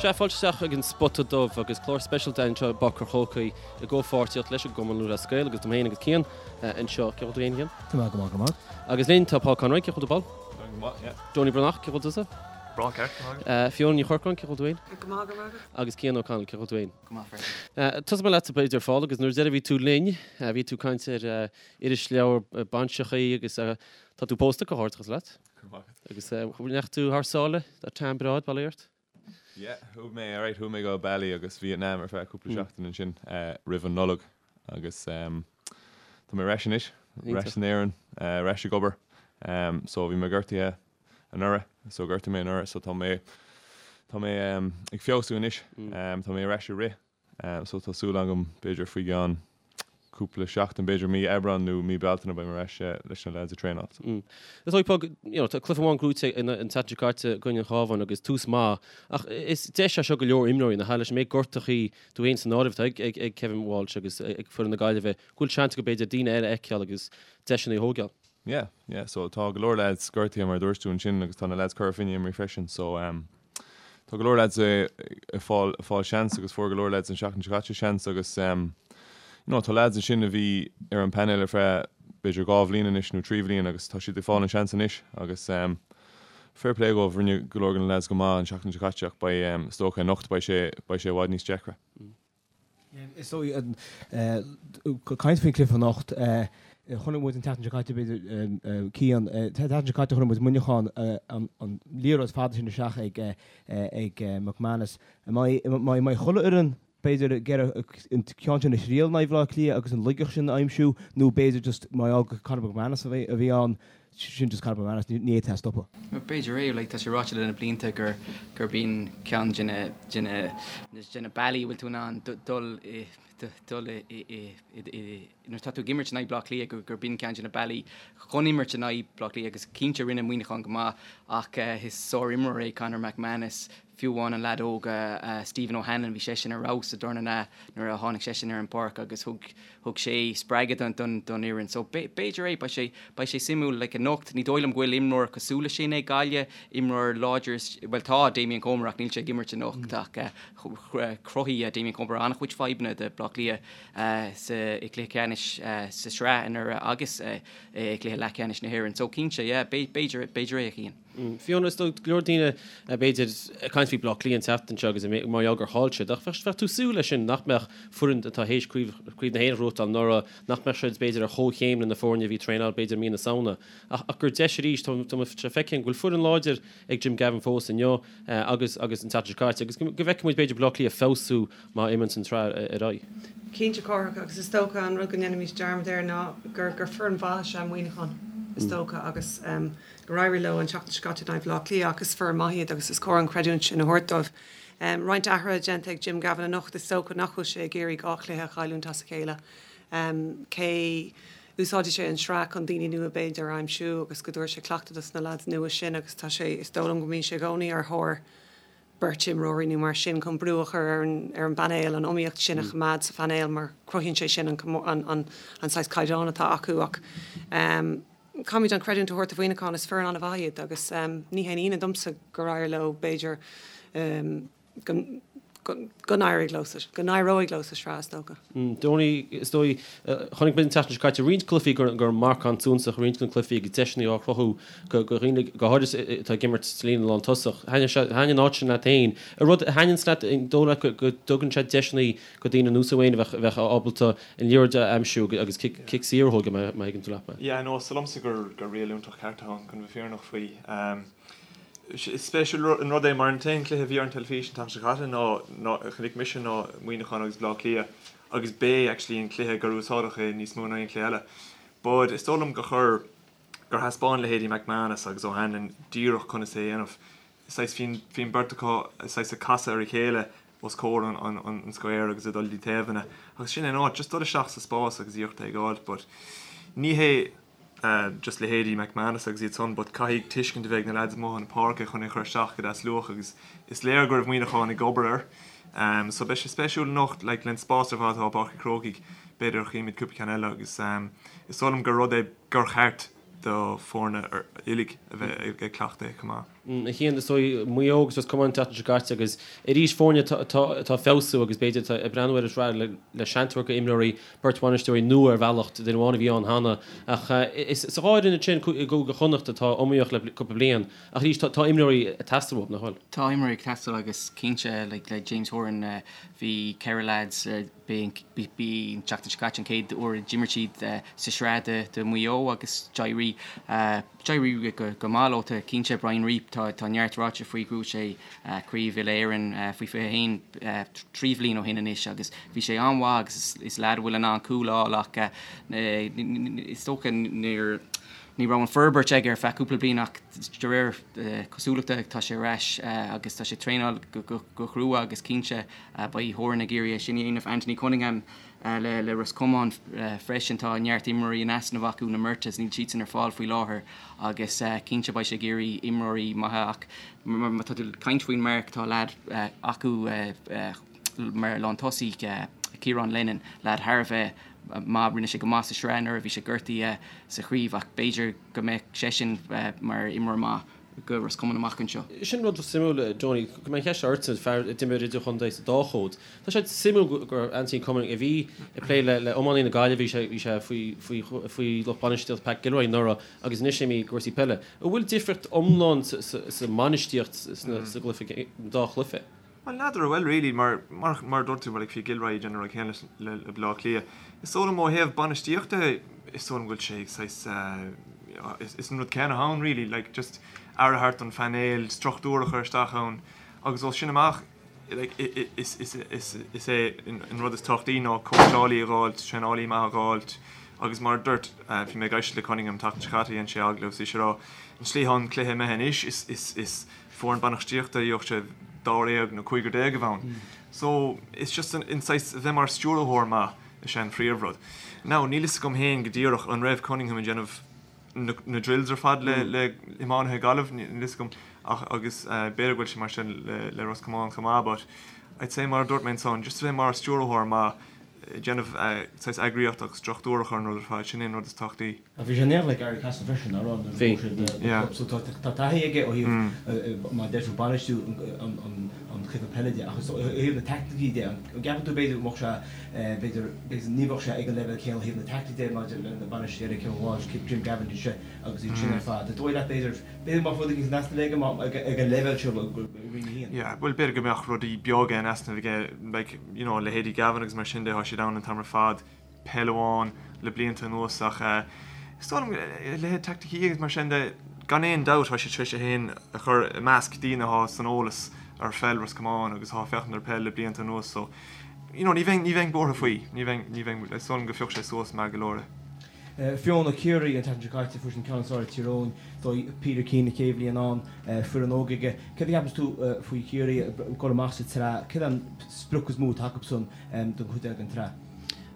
Sea, fáilte isteach ag an Spota Dubh agus clár speisialta anseo i bPáirc an Chrócaigh i gcomhpháirtíocht leis an gCumann Lúthchleas Gael agus dom féin agus Cian anseo. Cén chaoi a bhfuil tú féin, a Chian? Tá mé go maith, go maith. Agus linn tá Paul Conroy, cén chaoi a bhfuil tú, Paul? Tá go maith, yeah. Donie Breathnach, cén chaoi a bhfuil tusa? Breá ceart, go maith agat. Fiona Ní Chorcráin, cén chaoi a bhfuil tú féin? Go maith, go maith agat. Agus Cian O'Connell, cén chaoi a bhfuil tú féin? Go maith freisin. Tosóidh mé leatsa b'fhéidir, a Phól, agus nuair deireadh a bhí tú linn, bhí tú ag caint ar irisleabhar bainseachaí agus tá tú pósta, comhghairdeachas leat. Go raibh maith agat. Agus ndeachaigh tú thar sáile, tá tan breá ag baile ort? Yeah, chuaigh mé, alright, chuaigh mé go Bali agus Vietnam ar feadh cúpla seachtain ansin roimh an Nollaig agus tá mé ar ais anois, ar ais in Éirinn, ar ais ag obair. So bhí mé gortaithe anuraidh, so gortaigh mé anuraidh, so tá mé, tá mé ag feabhsú anois, tá mé ar ais ag rith. So tá súil agam b'fhéidir faoi gceann cúpla seachtain, b'fhéidir mí Aibreán nó mí Bealtaine beidh mé ar ais leis na lads ag traenáil. Is dóigh Paul, you know, tá cluiche amháin gnóthaithe an tseachtain seo caite i gcoinne an Chabháin agus tús maith ach is deis é seo go leor imreoirí nach ea leis an méid gortachaí tú féin san áireamh atá ag Kevin Walsh agus ag foireann na Gaillimhe go bhfuil seans acu b'fhéidir daoine eile a fheiceáil agus deiseanna a thógáil. Yeah, yeah, so tá go leor lads gortaithe mar a dúirt tú ansin agus tá na lads Cora Finne imithe freisin so um, tá go leor lads ag fáil ag fáil seans agus fuair go leor lads an seachtain seo caite seans agus um, you know, tá lads ansin a bhí ar an panel ar feadh b'fhéidir 2 bhliain anois nó 3 bhliain agus tá siad ag fáil an seans anois agus um, fair play dóibh rinne go leor de na lads go maith an seachtain seo caite ach beidh um, is dócha anocht beidh sé beidh sé i bhfad níos deacra. Is dóigh, caint faoin cluiche anocht, chonaic muid an tseachtain seo caite, b'fhéidir, Cian, an tseachtain seo caite chonaic muid Muineachán, an liathróid fada sin isteach ag ag McManus. An mbeidh chuile fhoireann, b'fhéidir, ag iarraidh an ceann sin a thriail in aghaidh Bhaile Átha Cliath agus an laigeacht sin a aimsiú nó b'fhéidir just mar gheall gur Conor McManus a bhí ann, Sin just Conor McManus, ní fhéadfá é a stopadh. B'fhéidir é, like, tá sé ráite le na blianta gur gurb in ceann de na de na de na bealaí a bhfuil tú in ann dul i dul i i i nuair atá tú ag imirt in aghaidh Bleá Cliath gur gurb in ceann de na bealaí chun imirt in aghaidh Bleá Cliath agus cinnte rinne Muineachán go maith ach is sár-imreoir é Conor McManus, fiú amháin an leaid óg Stephen O'Hanlon bhí seisean ar fheabhas sa darna leath nuair a tháinig seisean ar an bpáirc agus thug Thug sé spreagadh don don fhoireann. So b'fhéidir é, beidh sé beidh sé suimiúil like anocht. Ní dóigh liom go bhfuil imreoir cosúil leis sin ag Gaillimh, imreoir láidir, bhuel tá Damien Comer ach níl sé ag imirt anocht ach chruthaigh Damien Comer an-chuid fadhbanna do Bleá Cliath sa i gcluiche ceannais sa sraith anuraidh agus i gcluiche leathcheannais na hÉireann. So cinnte yeah b'fhéidir b'fhéidir é a Chian. Fiona, is dóigh go leor daoine, b'fhéidir, ag caint faoi Bleá Cliath an tseachtain seo agus mar gheall gur chaill siad, ach bheadh tú ag súil leis sin, nach mbeadh foireann atá théis Craobh na hÉireann a ghnóthachtáil anuraidh, nach mbeadh siad, b'fhéidir, ar chomhchéim le na foirne a bhí ag traenáil, b'fhéidir, mí na Samhna. Ach gur deis arís, tá sé feicthe go bhfuil foireann láidir ag Jim Gavin fós inniu agus agus an tseachtain seo caite agus go bhfeicfidh muid, b'fhéidir, Bleá Cliath feabhsú má imíonn an tsraith ar aghaidh. Cinnte, Cárthach, agus is dócha an rud go ndéanaimid dearmad air ná gur gur foireann mhaith is ea Muineachán, is dócha, agus. gur éirigh leo an tseachtain seo caite in aghaidh Bhaile Átha Cliath ach is foireann maith iad agus is cóir an chreidiúint sin a thabhairt dóibh. Roinnt athruithe déanta ag Jim Gavin anocht, is dócha nach bhfuil sé ag iarraidh 2 chluiche a chailliúint as a chéile. Cé úsáidfidh sé an sraith chun daoine nua b'fhéidir a aimsiú agus go dtabharfaidh sé cleachtadh dos na leaids nua sin agus tá sé, is dóigh liom go mbíonn sé i gcónaí ar thóir beirt imreoirí nó mar sin chun brú a chur ar an ar an bpainéal, an iomaíocht sin a choimeád sa phainéal mar cruthaíonn sé sin an an an saghas caighdeán atá acu ach caithfimid an chreidiúint a thabhairt do Mhuineachán, is foireann an-mhaith iad agus ní haon ionadh domsa gur éirigh leo, b'fhéidir go go n-éireoidh leo sa go n-éireoidh leo sa sraith is dócha. Donie, is dóigh, chonaic muid an tseachtain seo caite roinnt cluichí gur gur marcán suntasach roinnt de na cluichí agus deiseanna á chruthú go go dhaoine go háirithe atá ag imirt sa líne lántosach. Thaitnigh sé thaitnigh an áit sin leat féin. An rud a thaitníonns leat an dóigh leat go go dtugann sé deiseanna go daoine ar nós Wayne a bheadh a bheadh ábalta an liathróid a aimsiú agus cic saor a thógáil má thuigeann tú leat mé. Yeah, no, is dóigh liomsa gur gur riail iontach ceart atá ann, chun bheith fírinneach faoi. Is spéisiúil an rud é mar an t-aon chluiche a bhí ar an teilifís an tseachtain seo caite ná ná a chonaic mise ná Muineachán agus Bleá Cliath agus b'é actually an cluiche gur úsáideadh é níos mó ná aon chluiche eile. But is dóigh liom gur chuir gur thaispeáin leithéidí McManus agus O'Hanlon díreach conas é a dhéanamh. Saghas bhí bhí an beirt acu saghas ag casadh ar a chéile os comhair an an square agus ag dul dtí taobhanna agus sin é an áit, just dul isteach sa spás agus iarracht é a fháil but ní hé just leithéidí McManus agus iad san but caithfidh tuiscint a bheith ag na lads amuigh chun na páirce chun é a chur isteach go deas luath agus is léir go raibh Muineachán ag obair air so beidh sé spéisiúil anocht like len spás ar fad atá i bPáirc an Chrócaigh b'fhéidir chífimid cúpla ceann eile agus is dóigh liom gur rud é gur cheart do foirne uilig a bheith ag cleachtadh é chomh maith. A Chian, is dóigh, Maigh Eo agus Ros Comáin an tseachtain seo caite agus arís foirne atá ag feabhsú agus b'fhéidir atá ag breathnú ar an tsraith le seans a thabhairt do imreoirí, beirt bhainisteoirí nua ar bhealach, duine amháin a bhí ann cheana. Ach is sa dhá fhoireann ansin i gCúige Chonnacht atá iomaíoch le cúpla bliain ach arís tá imreoirí ag teastáil uathu, nach bhfuil? Tá imreoirí ag teastáil agus cinnte le James Horan bhí 4 leaids B'é an tseachtain seo caite an chéad uair a d'imir siad sa sraith do Mhaigh Eo agus d'éirigh d'éirigh go maith leo. Cinnte Brian Reape, tá tá neart ráite faoi, bhuaigh sé Craobh Uile-Éireann faoi 21 3 bhliain ó shin anois agus bhí sé an-mhaith agus is leaid a bhfuil in ann cúl a fháil ach is dócha níor ní raibh an forbairt aige ar feadh cúpla bliain ach de réir cosúlachta tá sé ar ais agus tá sé ag traenáil go crua agus cinnte Beidh Horan ag iarraidh é sin a dhéanamh. Anthony Cunningham le Ros Comáin freisin. Tá neart imreoirí in easnamh acu, na Murtaghs, níl siadsan ar fáil faoi láthair agus cinnte beidh sé ag iarraidh imreoirí maithe ach má tá tú ag caint faoin marc, tá leaid acu mar lántosaí, Ciarán Lennon, leaid thar a bheith maith, rinne sé go maith sa sraith anuraidh, bhí sé gortaithe sa chraobh ach b'fhéidir go mbeadh seisean mar imreoir maith. go Ros Comáin amach anseo. Sin rud suimiúil, Johnny, go mbeidh an cheist ortsa, fear a d'imir idirchontae sa dá chód. Tá sé suimiúil gur Anthony Cunningham a bhí ag plé le iománaí na Gaillimhe, bhí sé bhí sé faoi faoi faoi lucht bainistíochta Pat Gilroy anuraidh agus anois imithe i gcúrsaí peile. An bhfuil difríocht iomlán sa sa mbainistíocht sna sa gcluiche, dá chluiche? Bhuel, n'fheadar an bhfuil really, mar, mar, mar a dúirt tú, like, bhí Gilroy ag déanamh an rud céanna le, le Baile Átha Cliath. Is dóigh liom ó thaobh bainistíochta, is dóigh liom go bhfuil sé saghas, eh, is, is an rud céanna ann really, like, just aire a thabhairt don phainéal, struchtúr a chur isteach ann, agus ó sin amach, like, is, is, is, is é an rud is tábhachtaí ná cóitseálaí a dh'fháilt, traenálaí maith a dh'fháilt, agus mar a dúirt, eh, bhí mé ag éisteacht le Cunningham an tseachtain seo caite, dhein sé agallamh, is bhí sé ag rá, an tslí atá an cluiche imithe anois, is, is, is, foireann bainistíochta gheobhadh sé dáréag nó cúigear déag a bheith ann. So, it's just an saghas a bheith mar stiúrthóir maith is ea an phríomhrud. Now, níl fhios agam féin go díreach an raibh Cunningham ag déanamh na na drills ar fad le le iománaithe Gaillimh, níl fhios agam ach agus b'fhéidir go bhfuil sé mar sin le le Ros Comáin chomh maith but I'd say mar a dúirt mé ansan, just a bheith mar stiúrthóir maith ag déanamh saghas eagraíocht agus struchtúr a chur ar an rud ar fad, sin é an rud is tábhachtaí. Ach bhí sé in éineacht le Garry Cassidy freisin, nach raibh, nuair a bhuaigh siad na club. So tá taithí aige ó thaobh, mar a deir tú, bainistiú an chluiche peile de. Ach ó thaobh na taicticí de, an gceapann tú b'fhéidir go mbeadh sé, b'fhéidir, b'fhéidir ní bheadh sé ag an leibhéal céanna ó thaobh na taicticí de maidir le na bainisteoirí eile, Kevin Walsh, Jim Gavin, iad agus iad sin ar fad. An dóigh leat b'fhéidir, b'fhéidir go mbeadh rud éigin in easnamh aige ag an leibhéal seo i Roinn 1? Yeah, bhuel b'fhéidir go mbeadh rudaí beaga in easnamh aige, like, you know, leithéidí Gavin agus mar sin de, tá siad ann an t-am ar fad. peil amháin le blianta anuas ach is dóigh liom a leithéid teaicticí agus mar sin de, gan aon dabht tá sé tar éis é féin a chur i measc daoine atá san eolas ar pheil Ros Comáin agus atá ag féachaint ar peil le blianta anuas so you know ní bheinn ní bheinn buartha faoi, ní bheinn ní bheinn is dóigh liom go phiocfaidh sé suas maith go leor é. Fiona, Ciarraí an tseachtain seo caite, fuair siad an ceann is fearr ar Tír Eoghain, dóigh Peter Keane a chéad bhliain ann, foireann óg aige. Céard a cheapanns tú faoi Chiarraí ag dul amach sa tsraith? Céard é an sprioc is mó atá acusan don chuid eile den tsraith?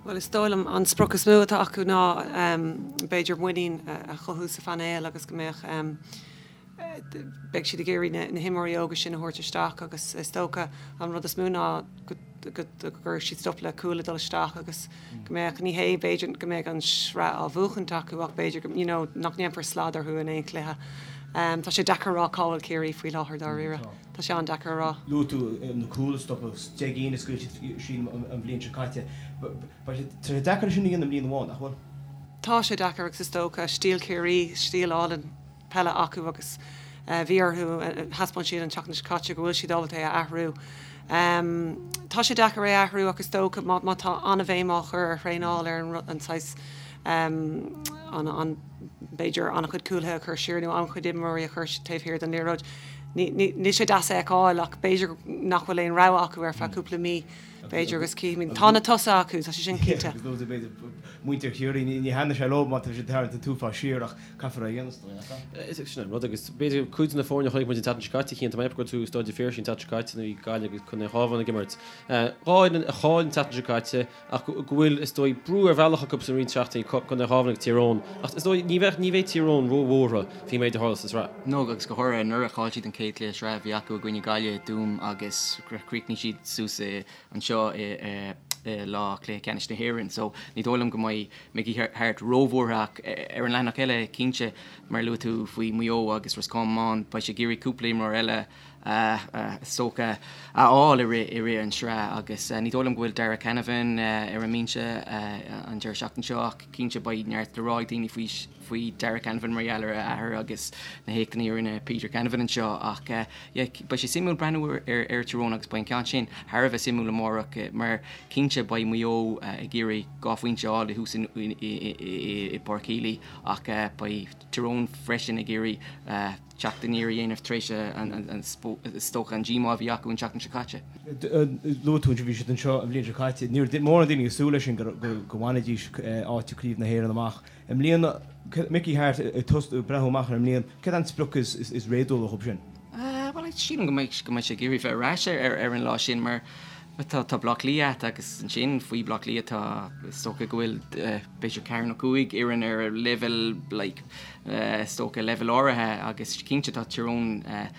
Bhuel, is dóigh liom an sprioc is mó atá acu ná b'fhéidir muinín a chothú sa phainéal agus go mbeadh, beidh siad ag iarraidh na himreoirí óga sin a thabhairt isteach agus is dócha an rud is mó ná go gcuirfidh siad stop le cúil ag dul isteach agus go mbeadh, ní hé b'fhéidir go mbeadh an sraith á bhuachaint acu ach b'fhéidir you know nach ndéanfar slad orthu in aon chluiche. Tá sé deacair a rá cá bhfuil Ciarraí faoi láthair dáiríre. Tá sé an-deacair a rá. Luaigh tú na cúil a stopadh, 10 gcinn a scaoil siad sílim an bhliain seo caite. Tá sé deacair sin a dhéanamh i mbliain amháin, nach bhfuil? Tá sé deacair agus is dócha, stíl Chiarraí, stíl álainn peile acu agus bhí orthu, thaispeáin siad an tseachtain seo caite go bhfuil siad ábalta é a athrú. Tá sé deacair é a athrú ach is dócha má tá an-bhéim á chur ar thraenáil ar an saghas an, b'fhéidir, an-chuid cúlaithe a chur siar nó an-chuid imreoirí a chur taobh thiar den liathróid. Níl sé deas a fheiceáil ach b'fhéidir nach bhfuil aon rogha acu ar feadh cúpla mí, b'fhéidir, agus cífimid. Tá na tosaithe acu, tá sé sin cinnte. Agus luaigh tú, b'fhéidir, muintir Chiarraí, ní thaitneoidh sé leo má tá siad ag tarraingt an t-uafás siar ach caithfear é a dhéanamh, is dóigh, nach ea? Is sin an rud agus b'fhéidir cuid de na foirne a chonaic muid an tseachtain seo caite, Cian, tá mé ag ceapadh go raibh tú i Staid an Phiarsaigh an tseachtain seo caite nuair a bhí Gaillimh agus Contae an Chabháin ag imirt. Dhá fhoireann a chaill an tseachtain seo caite, ach go bhfuil, is dóigh, brú ar bhealach acu san roinnt seachtainí, Contae an Chabháin agus Tír Eoghain, ach is dóigh, ní bheadh, ní bheidh Tír Eoghain ró-bhuartha faoin méid a tharla sa tsraith. No, agus go háirithe anuraidh, chaill siad an chéad chluiche sraithe a bhí acu i gcoinne Gaillimhe, Tuaim agus chríochnaigh siad suas anseo i. lá cluiche ceannais na hÉireann so ní dóigh liom go mbeidh Mickey Harte róbhuartha ach ar an leathanach eile cinnte mar a luaigh tú faoi Maigh Eo agus Ros Comáin beidh sé ag iarraidh cúpla imreoir eile is dócha a fháil i rith i rith an sraith agus ní dóigh liom go bhfuil Darragh Canavan ar an mbinse an deireadh seachtaine seo ach cinnte beidh neart le rá ag daoine faoi faoi Darragh Canavan mar gheall ar a athair agus na héachtanna a rinne Peter Canavan anseo ach yeah beidh sé suimiúil breathnú ar ar Tyrone agus beidh an ceann sin thar a bheith suimiúil amárach mar cinnte beidh Maigh Eo ag iarraidh 2 phointe a fháil thuas i i bPáirc Healy ach beidh Tyrone freisin ag iarraidh teacht aniar a dhéanamh tar éis is dócha an díomá a bhí acu an tseachtain seo caite. Luaigh tú ansin, bhí siad anseo an bhliain seo caite. Ní raibh mórán daoine ag súil leis sin go mbainfidís áit i gCraobh na hÉireann amach. I mbliana, Mickey Harte ag tosú ag breathnú amach ar an mbliain, céard é an sprioc is réadúla dhóibh sin? Bhuel, sílim go mbeidh go mbeidh sé ag iarraidh bheith ar ais ar an lá sin mar tá tá Bleá Cliath agat agus ansin faoi Bleá Cliath tá is dócha go bhfuil b'fhéidir ceathair nó cúig fhoireann ar leibhéal like is dócha, leibhéal áirithe agus cinnte tá Tyrone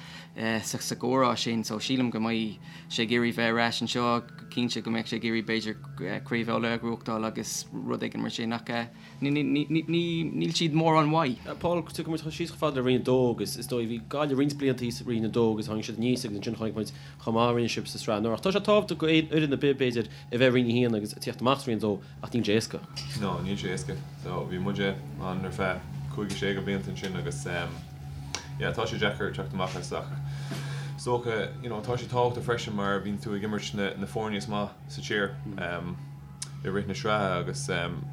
sa gcomhrá sin so sílim go mbeidh sé ag iarraidh bheith ar ais anseo, cinnte go mbeadh sé ag iarraidh b'fhéidir Craobh Uladh a ghnóthachtáil agus rud éigin mar sin ach níl siad mórán uaidh. Paul, tiocfaidh muid síos chomh fada le Roinn 2 agus is dóigh bhí Gaillimh roinnt blianta thíos i Roinn 2 agus tháinig siad aníos agus ansin chonaic muid chomh maith a rinne sibh sa sraith anuraidh. Tá sé tábhachtach go fhoireann ar bith b'fhéidir a bheith i Roinn 1 agus tíocht amach as Roinn 2 ach níl sé éasca. No, níl sé éasca. So, bhí muide ann ar feadh cúig nó sé de bhlianta ansin agus yeah, tá sé deacair teacht amach as ach is dócha, you know, tá sé tábhachtach freisin mar bíonn tú ag imirt na, na foirne is maith sa tír i rith na sraithe agus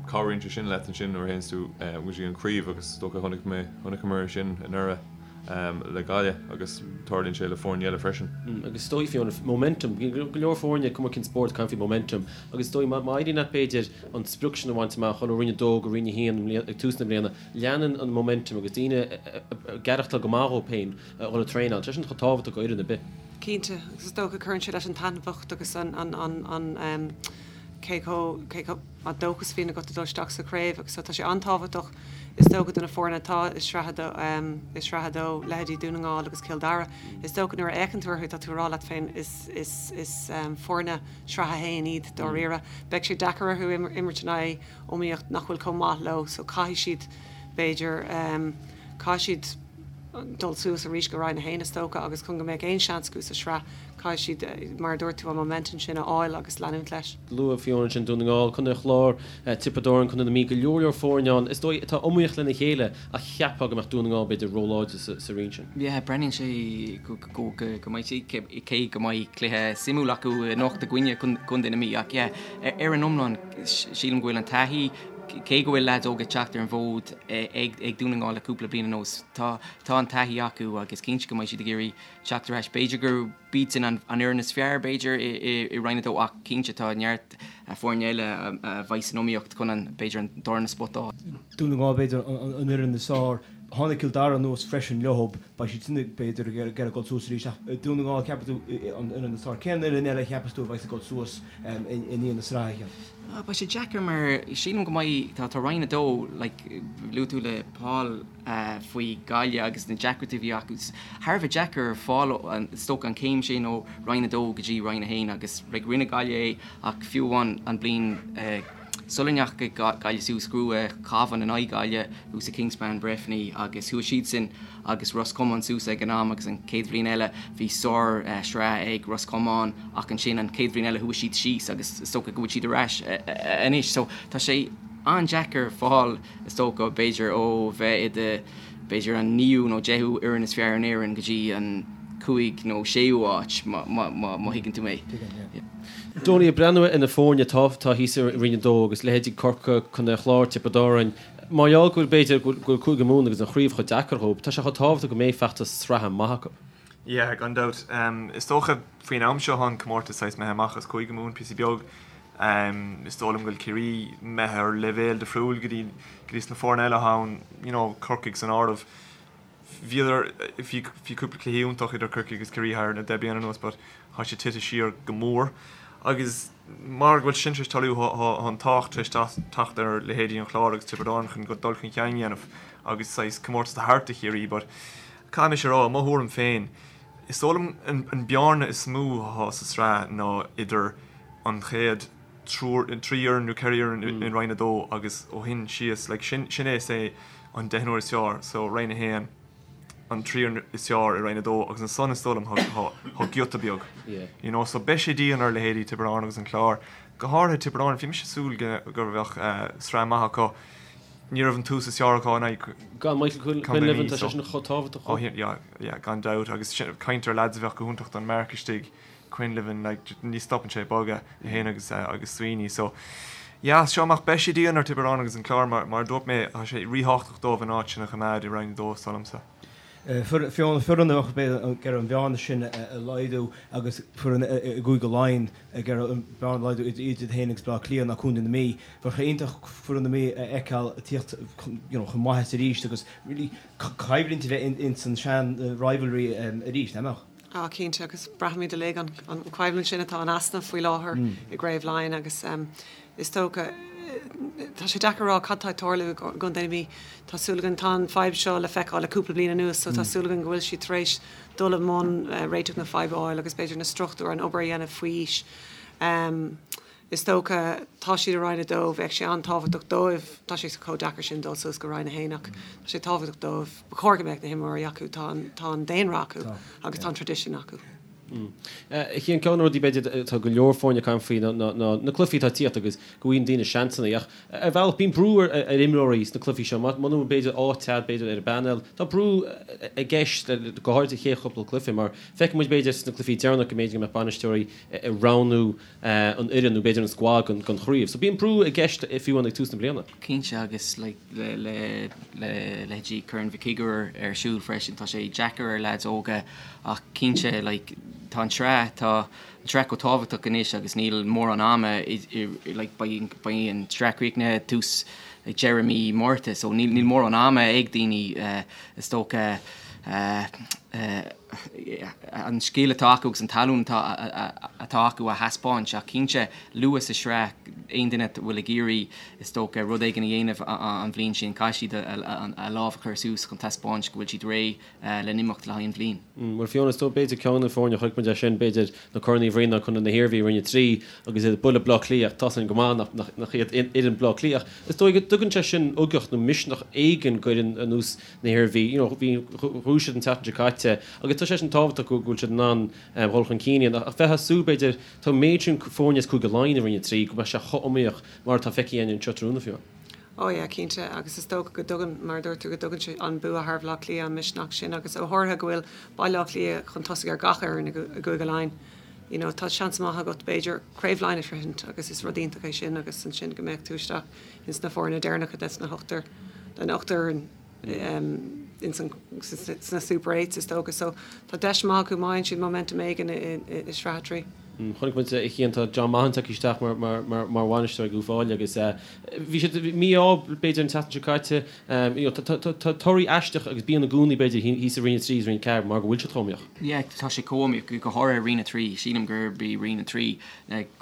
cabhraíonn sé sin leat ansin nuair a théanns tú go dtí an craobh agus is dócha chonaic mé, chonaiceamar é sin anuraidh. le Gaillimh agus tarlaíonn sé le foirne eile freisin. Agus is dóigh Fiona, momentum, go leor foirne, cuma cén spórt, caint faoi momentum agus is dóigh má éiríonn leat b'fhéidir an sprioc sin a bhaint amach, dhul ó Roinn 2 go Roinn 1 ag tús na bliana, leanann an momentum agus daoine ag aireachtáil go maith dhóibh féin a dhul ag traenáil, tá sin chomh tábhachtach do fhoireann ar bith. Cinnte, agus is dócha cuireann sé leis an taitneamhacht agus an an cé chomh cé chomh an dóchas a bhíonn agat ag dul isteach sa chraobh agus so tá sé an-tábhachtach is dócha do na foirne atá i Sraith i Sraith 2, leithéidí Dún na nGall agus Cill Dara. Is dócha nuair a fhéachann tú orthu tá tú ag rá leat féin is is is foirne Sraith 1 iad dáiríre. Beidh sé deacair orthu imirt in aghaidh iomaíocht nach bhfuil chomh maith leo so caithfidh siad b'fhéidir caithfidh siad dul suas arís go Roinn 1 is dócha agus chun go mbeadh aon seans acu sa sraith caithfidh siad, mar a dúirt tú, an momentum sin a fháil agus leanúint leis. Luaigh Fiona ansin Dún na nGall, Contae an Chláir, Tiobraid Árann, Contae na Mí, go leor leor foirne ann is dóigh atá iomaíoch lena chéile ach cheapfá go mbeadh Dún na nGall b'fhéidir róláidir sa roinn sin. Yeah, breathnaíonn sé go go mbeidh sé, cé go mbeidh cluiche suimiúil acu anocht i gcoinne Contae na Mí ach yeah, ar an iomlán sílim go bhfuil an taithí, cé go bhfuil leaids óga ag teacht ar an bhfód ag Dún na nGall le cúpla bliain anuas, tá an taithí acu agus cinnte go mbeidh siad ag iarraidh teacht ar ais. B'fhéidir gurb iadsan an fhoireann is fearr, b'fhéidir, i Roinn 2 ach cinnte tá neart foirne eile a bheidh san iomaíocht chun an, b'fhéidir, an darna spota a fháil. Dún na nGall, b'fhéidir, an fhoireann is fearr. Tháinig Cill Dara anuas freisin leo, beidh siad sin, b'fhéidir, ag iarraidh dul suas arís ach Dún na nGall, ceapann tú, an fhoireann is fearr. Cén fhoireann eile a cheapas tú a bheidh ag dul suas i ndiaidh na sraithe? Beidh sé deacair mar sílim go mbeidh, tá Roinn 2, like, luaigh tú le Paul faoi Gaillimh agus na deacrachtaí a bhí acu. Thar a bheith deacair fáil, is dócha, an céim sin ó Roinn 2 go dtí Roinn 1 agus like rinne Gaillimh é ach fiú amháin an bliain sula ndeachaigh Gaillimh suas, ghnóthaigh Cabhán in aghaidh Gaillimh thuas i Kingspan Breffni agus chuaigh siadsan agus Ros Comáin suas ag an am agus an chéad bhliain eile bhí sár sraith ag Ros Comáin ach ansin an chéad bhliain eile chuaigh siad síos agus is dócha go bhfuil siad ar ais anois so tá sé an-deacair fáil is dócha b'fhéidir ó bheith i do b'fhéidir an naoú nó deichiú fhoireann is fearr in Éirinn go dtí an cúig nó séú áit má thuigeann tú mé. Donie, ag breathnú ar na foirne atá thíos i Roinn 2 agus leithéidí Corcaigh, Contae an Chláir, Tiobraid Árann, Mar gheall go bhfuil, b'fhéidir, go bhfuil Cúige Mumhan agus an chraobh chomh deacair dhóibh, tá sé chomh tábhachtach go mbeidh feachtas sraithe maith acu. Yeah, gan dabht. Is dócha faoin am seo tá an comórtas saghas imithe amach as Cúige Mumhan píosa beag. Is dóigh liom go bhfuil Ciarraí imithe ar leibhéal difriúil go dtí go dtí sna foirne eile atá ann, you know, Corcaigh san áireamh. Bhíodar, bhí bhí cúpla cluichí iontach idir Corcaigh agus Ciarraí thar na deich bliana anuas but tá sé tite siar go mór. Agus mar go bhfuil sin tar éis tarlú tá an tábhacht tar éis teacht ar leithéidí an Chláir agus Tiobraid Árann chun dul chun cinn a dhéanamh agus saghas comórtas a thabhairt do Chiarraí but caithfidh mise a rá, i mo thuairim féin, is dóigh liom an bearna is mó atá sa sraith ná idir an chéad. triúr, 3 fhoireann nó 4 fhoireann in Roinn 2 agus ó shin síos, like sin, sin é say an deichniúr is fearr, so Roinn 1, an triúr is fearr i Roinn 2 agus ansan is dóigh liom tá, tá giota beag, you know, so beidh sé dian ar leithéidí Tiobraid Árann agus an Clár, go háirithe Tiobraid Árann, bhí mise ag súil go, go bheadh sraith maith acu, ní raibh an tús is fearr acu in aghaidh Gan Michael Quinlivan, tá sé sin chomh tábhachtach. Oh yeah, yeah, gan dabht agus sin, caint ar lads a bheadh go hiontach don marc istigh. Quinlivan, like, ní stopann sé ag bogadh, é féin agus, agus Sweeney. So, yeah, as seo amach beidh sé dian ar Tiobraid Árann agus an Clár, mar, mar a dúirt mé, tá sé ríthábhachtach dóibh an áit sin a choimeád i Roinn 2, is dóigh liomsa. Fiona, foireann a bheadh ag iarraidh an bhearna sin a laghdú agus foireann i gCúige Laighean ag iarraidh an bhearna a laghdú idir iad féin agus Baile Átha Cliath ná Contae na Mí. Bheadh sé iontach foireann na Mí a fheiceáil ag tíocht chun, you know, chun maitheasa arís agus really coimhlint a bheith ins an sean rivalry arís, nach mbeadh? Á, cinnte, agus braithimid uilig an choimhlint sin atá in easnamh faoi láthair i gCraobh Laighean agus is dócha, tá sé deacair a rá cad tá ag tarlú i gContae na Mí. Tá súil againn, tá an fadhb seo le feiceáil le cúpla bliain anuas so tá súil againn go bhfuil siad tar éis dul i mbun réiteach na faidhbe a fháil agus b'fhéidir na struchtúir, an obair a dhéanamh faoi aois. Is dócha, tá siad i Roinn 2, bheadh sé an-tábhachtach dóibh, tá sé chomh deacair sin dul suas go Roinn 1 ach tá sé tábhachtach dóibh, ba chóir go mbeadh na himreoirí acu, tá an, tá an daonra acu agus tá an traidisiún acu. Ceann de na rudaí b'fhéidir atá go leor foirne ag caint faoi ná na cluichí atá ag tíocht agus go bhfaigheann daoine seansanna ach ar bhealach bíonn brú ar imreoirí sna cluichí seo muna bhfuil b'fhéidir áit agat b'fhéidir ar an bpainéal tá brú i gceist go háirithe sa chéad chúpla cluiche mar feiceann muid b'fhéidir sna cluichí deireanach go mb'fhéidir go mbeadh bainisteoirí ag roghnú an fhoireann nó b'fhéidir an squad don chraobh. So bíonn brú i gceist fiú amháin ag tús na bliana. Cinnte agus like le le le leithéidí Corn Mhic Uidhir ar siúl freisin tá sé deacair ar leaids óga ach cinnte like tá an tsraith tá an tsraith chomh tábhachtach anois agus níl mórán ama i i like beidh beidh an tsraith críochnaithe tús like deireadh mí Márta so níl níl mórán ama ag daoine is dócha eh eh an scil atá acu agus an talún atá acu a thaispeáint ach cinnte luath sa sraith aon duine a bhfuil ag iarraidh is dócha rud éigin a dhéanamh an bhliain sin caithfidh siad a lámh a chur suas chun taispeáint go bhfuil siad réidh le n-imeacht le haghaidh an bhliain. Bhuel Fiona is dóigh b'fhéidir ceann de na foirne a chonaic muid é sin b'fhéidir na Corn Uí Bhriain ná Contae na hIarmhí i Roinn 3 agus iad ag bualadh Bleá Cliath ach tá sin go maith nach iad fhoireann Bleá Cliath ach is dóigh go dtugann sé sin ugach nó misneach éigin d'fhoireann ar nós na hIarmhí, you know, bhí, bhuaigh siad an tseachtain seo caite agus tá sé sin tábhachtach go bhfuil siad in ann dhul chun cinn a dhéanamh. Ach bheifeá ag súil, b'fhéidir, tá an méid sin foirne as Cúige Laighean i Roinn 3 go mbeadh sé chomh iomaíoch mar atá feicthe againn anseo tráthnóna fiú. Oh yeah, cinnte, agus is dócha go dtugann, mar a dúirt tú, go dtugann sé an bua thar Bhaile Átha Cliath an misneach sin agus go háirithe go bhfuil Baile Átha Cliath chun tosaigh ar gach fhoireann i gCúige Laighean. You know, tá seans maith agat, b'fhéidir, Craobh Laighean a shroichint agus is rud iontach é sin agus ansin go mbeadh tú isteach ins na foirne deireanacha des na hochtar, den ochtar fhoireann ins an, sna Super Eights is dócha. So tá deis maith acu má fhaigheann siad momentum éigin i Sraith 3. Chonaic muid a Chian, tá John Maughan tagtha isteach mar, mar, mar, mar bhainisteoir ag Uíbh Fhailí agus bhí siad mí-ádh b'fhéidir an tseachtain seo caite. You know, tá, tá, tá torthaí aisteach agus bíonn i gcónaí b'fhéidir thíos i Roinn 3 is Roinn 4 mar go bhfuil siad chomh iomaíoch. Yeah, tá sé chomh iomaíoch, go háirithe Roinn 3. Sílim gurb í Roinn 3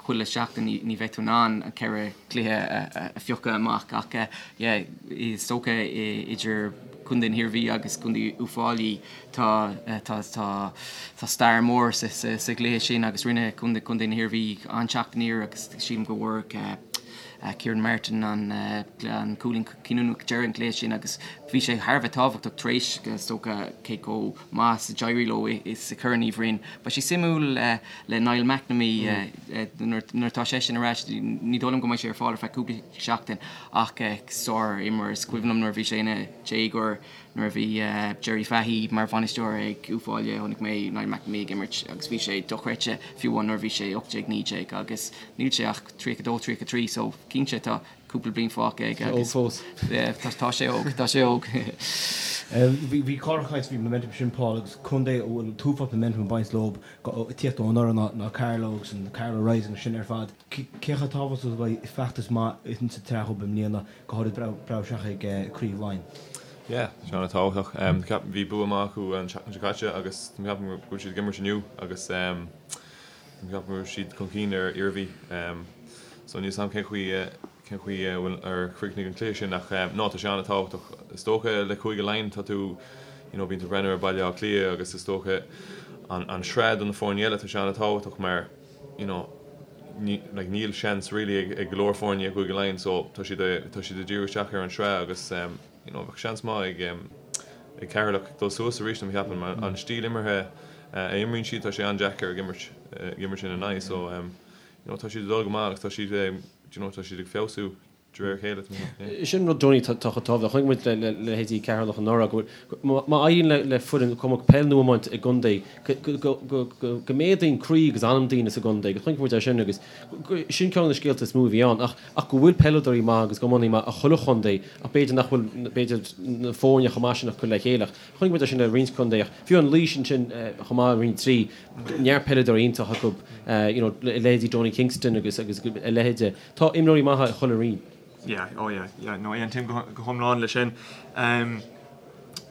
chuile sheachtain ní bheidh tú in ann an 4 chluiche a phiocadh amach ach yeah is dócha idir Contae na hIarmhí agus Contae Uíbh Fhailí tá tá tá tá stair mór sa sa sa gcluiche sin agus rinne Contae Contae na hIarmhí an-teacht aniar agus sílim go bhfuair Kieran Martin an an cúilín cinniúnach ag deireadh an chluiche sin agus bhí sé thar a bheith tábhachtach tar éis is dócha cé chomh maith is a d'éirigh leo i sa Chorn Uí Bhroin. Beidh sé suimiúil le Niall McNamee nuair atá seisean ar ais, ní dóigh liom go mbeidh sé ar fáil ar feadh cúpla seachtain ach sár-imreoir. Is cuimhin liom nuair a bhí sé ina dhéagóir nuair a bhí Jerry Fahy mar bhainisteoir ag Uíbh Fhailí chonaic mé Niall McNamee ag imirt agus bhí sé dochreidte fiú amháin nuair a bhí sé 18, 19 agus níl sé ach 32, 33 so cinnte tá cúpla bliain fágtha aige agus Óg fós. Tá sé óg, tá sé óg. Bhí Cárthach ag caint faoin momentum sin Paul agus contae a bhfuil an t-uafás momentum ag baint leo ag tíocht ó anuraidh ná ná Carlow agus an Carlow Rising sin ar fad. Cé chomh tábhachtach is a bheidh feachtas maith insa tsraith dhóibh i mbliana, go háirid breathnú isteach ag Craobh Laighean? Yeah, tá sé an-tábhachtach. Ceapaim bhí bua maith acu an tseachtain seo caite agus ceapaim go bhfuil siad ag imirt inniu agus Ceapaim go raibh siad chun cinn ar Iarmhí so níl 's a'm cén chaoi cén chaoi a bhfuil ar chríochnaigh an cluiche sin ach no tá sé an-tábhachtach. Is dócha le Cúige Laighean tá tú you know bíonn tú ag breathnú ar Baile Átha Cliath agus is dócha an an sraith do na foirne eile tá sé an-tábhachtach mar you know. like níl seans really ag ag go leor foirne i gCúige Laighean so tá siad tá siad ag díriú isteach ar an sraith agus you know bheadh seans maith ag ag Ceatharlach dul suas arís mé a cheapadh mar an stíl imeartha a imríonn siad tá sé an-deacair ag imirt ag imirt ina n-aghaidh so you know tá siad ag dul go maith agus tá siad you know tá siad ag feabhsú de réir a chéile. Sin rud Donie atá chomh tábhachtach. Chonaic muid le leithéidí Ceatharlach anuraidh go bhfuil, má éiríonn le foireann cuma peil nó iomáint i gcontae, go méadaíonn croí agus anam daoine sa gcontae agus chonaic muid é sin agus sin ceann de na scéalta is mó a bhí ann. Ach go bhfuil peileadóirí maithe agus iománaí maith i chuile chontae ach b'fhéidir nach bhfuil b'fhéidir na foirne chomh maith sin acu le chéile. Ach chonaic muid é sin le roinnt contae ach fiú an Laois ansin chomh maith i Roinn 3, neart peileadóirí iontach acu, you know, leithéidí Donie Kingston agus agus a leithéide. Tá imreoirí maithe i chuile roinn. Yeah, oh yeah, yeah, no, aontaím go hiomlán leis sin. Um,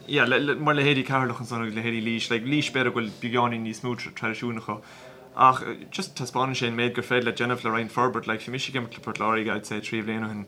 yeah, le, le, mar leithéidí Ceatharlach ansan agus leithéidí Laois, like, Laois b'fhéidir go bhfuil beagáinín níos mó traidisiún acu. Ach just taispeánann sé an méid gur féidir leat déanamh le roinnt forbairt, like, bhí mise ag imirt le Port Láirge, I'd say, 3 bhliain ó shin,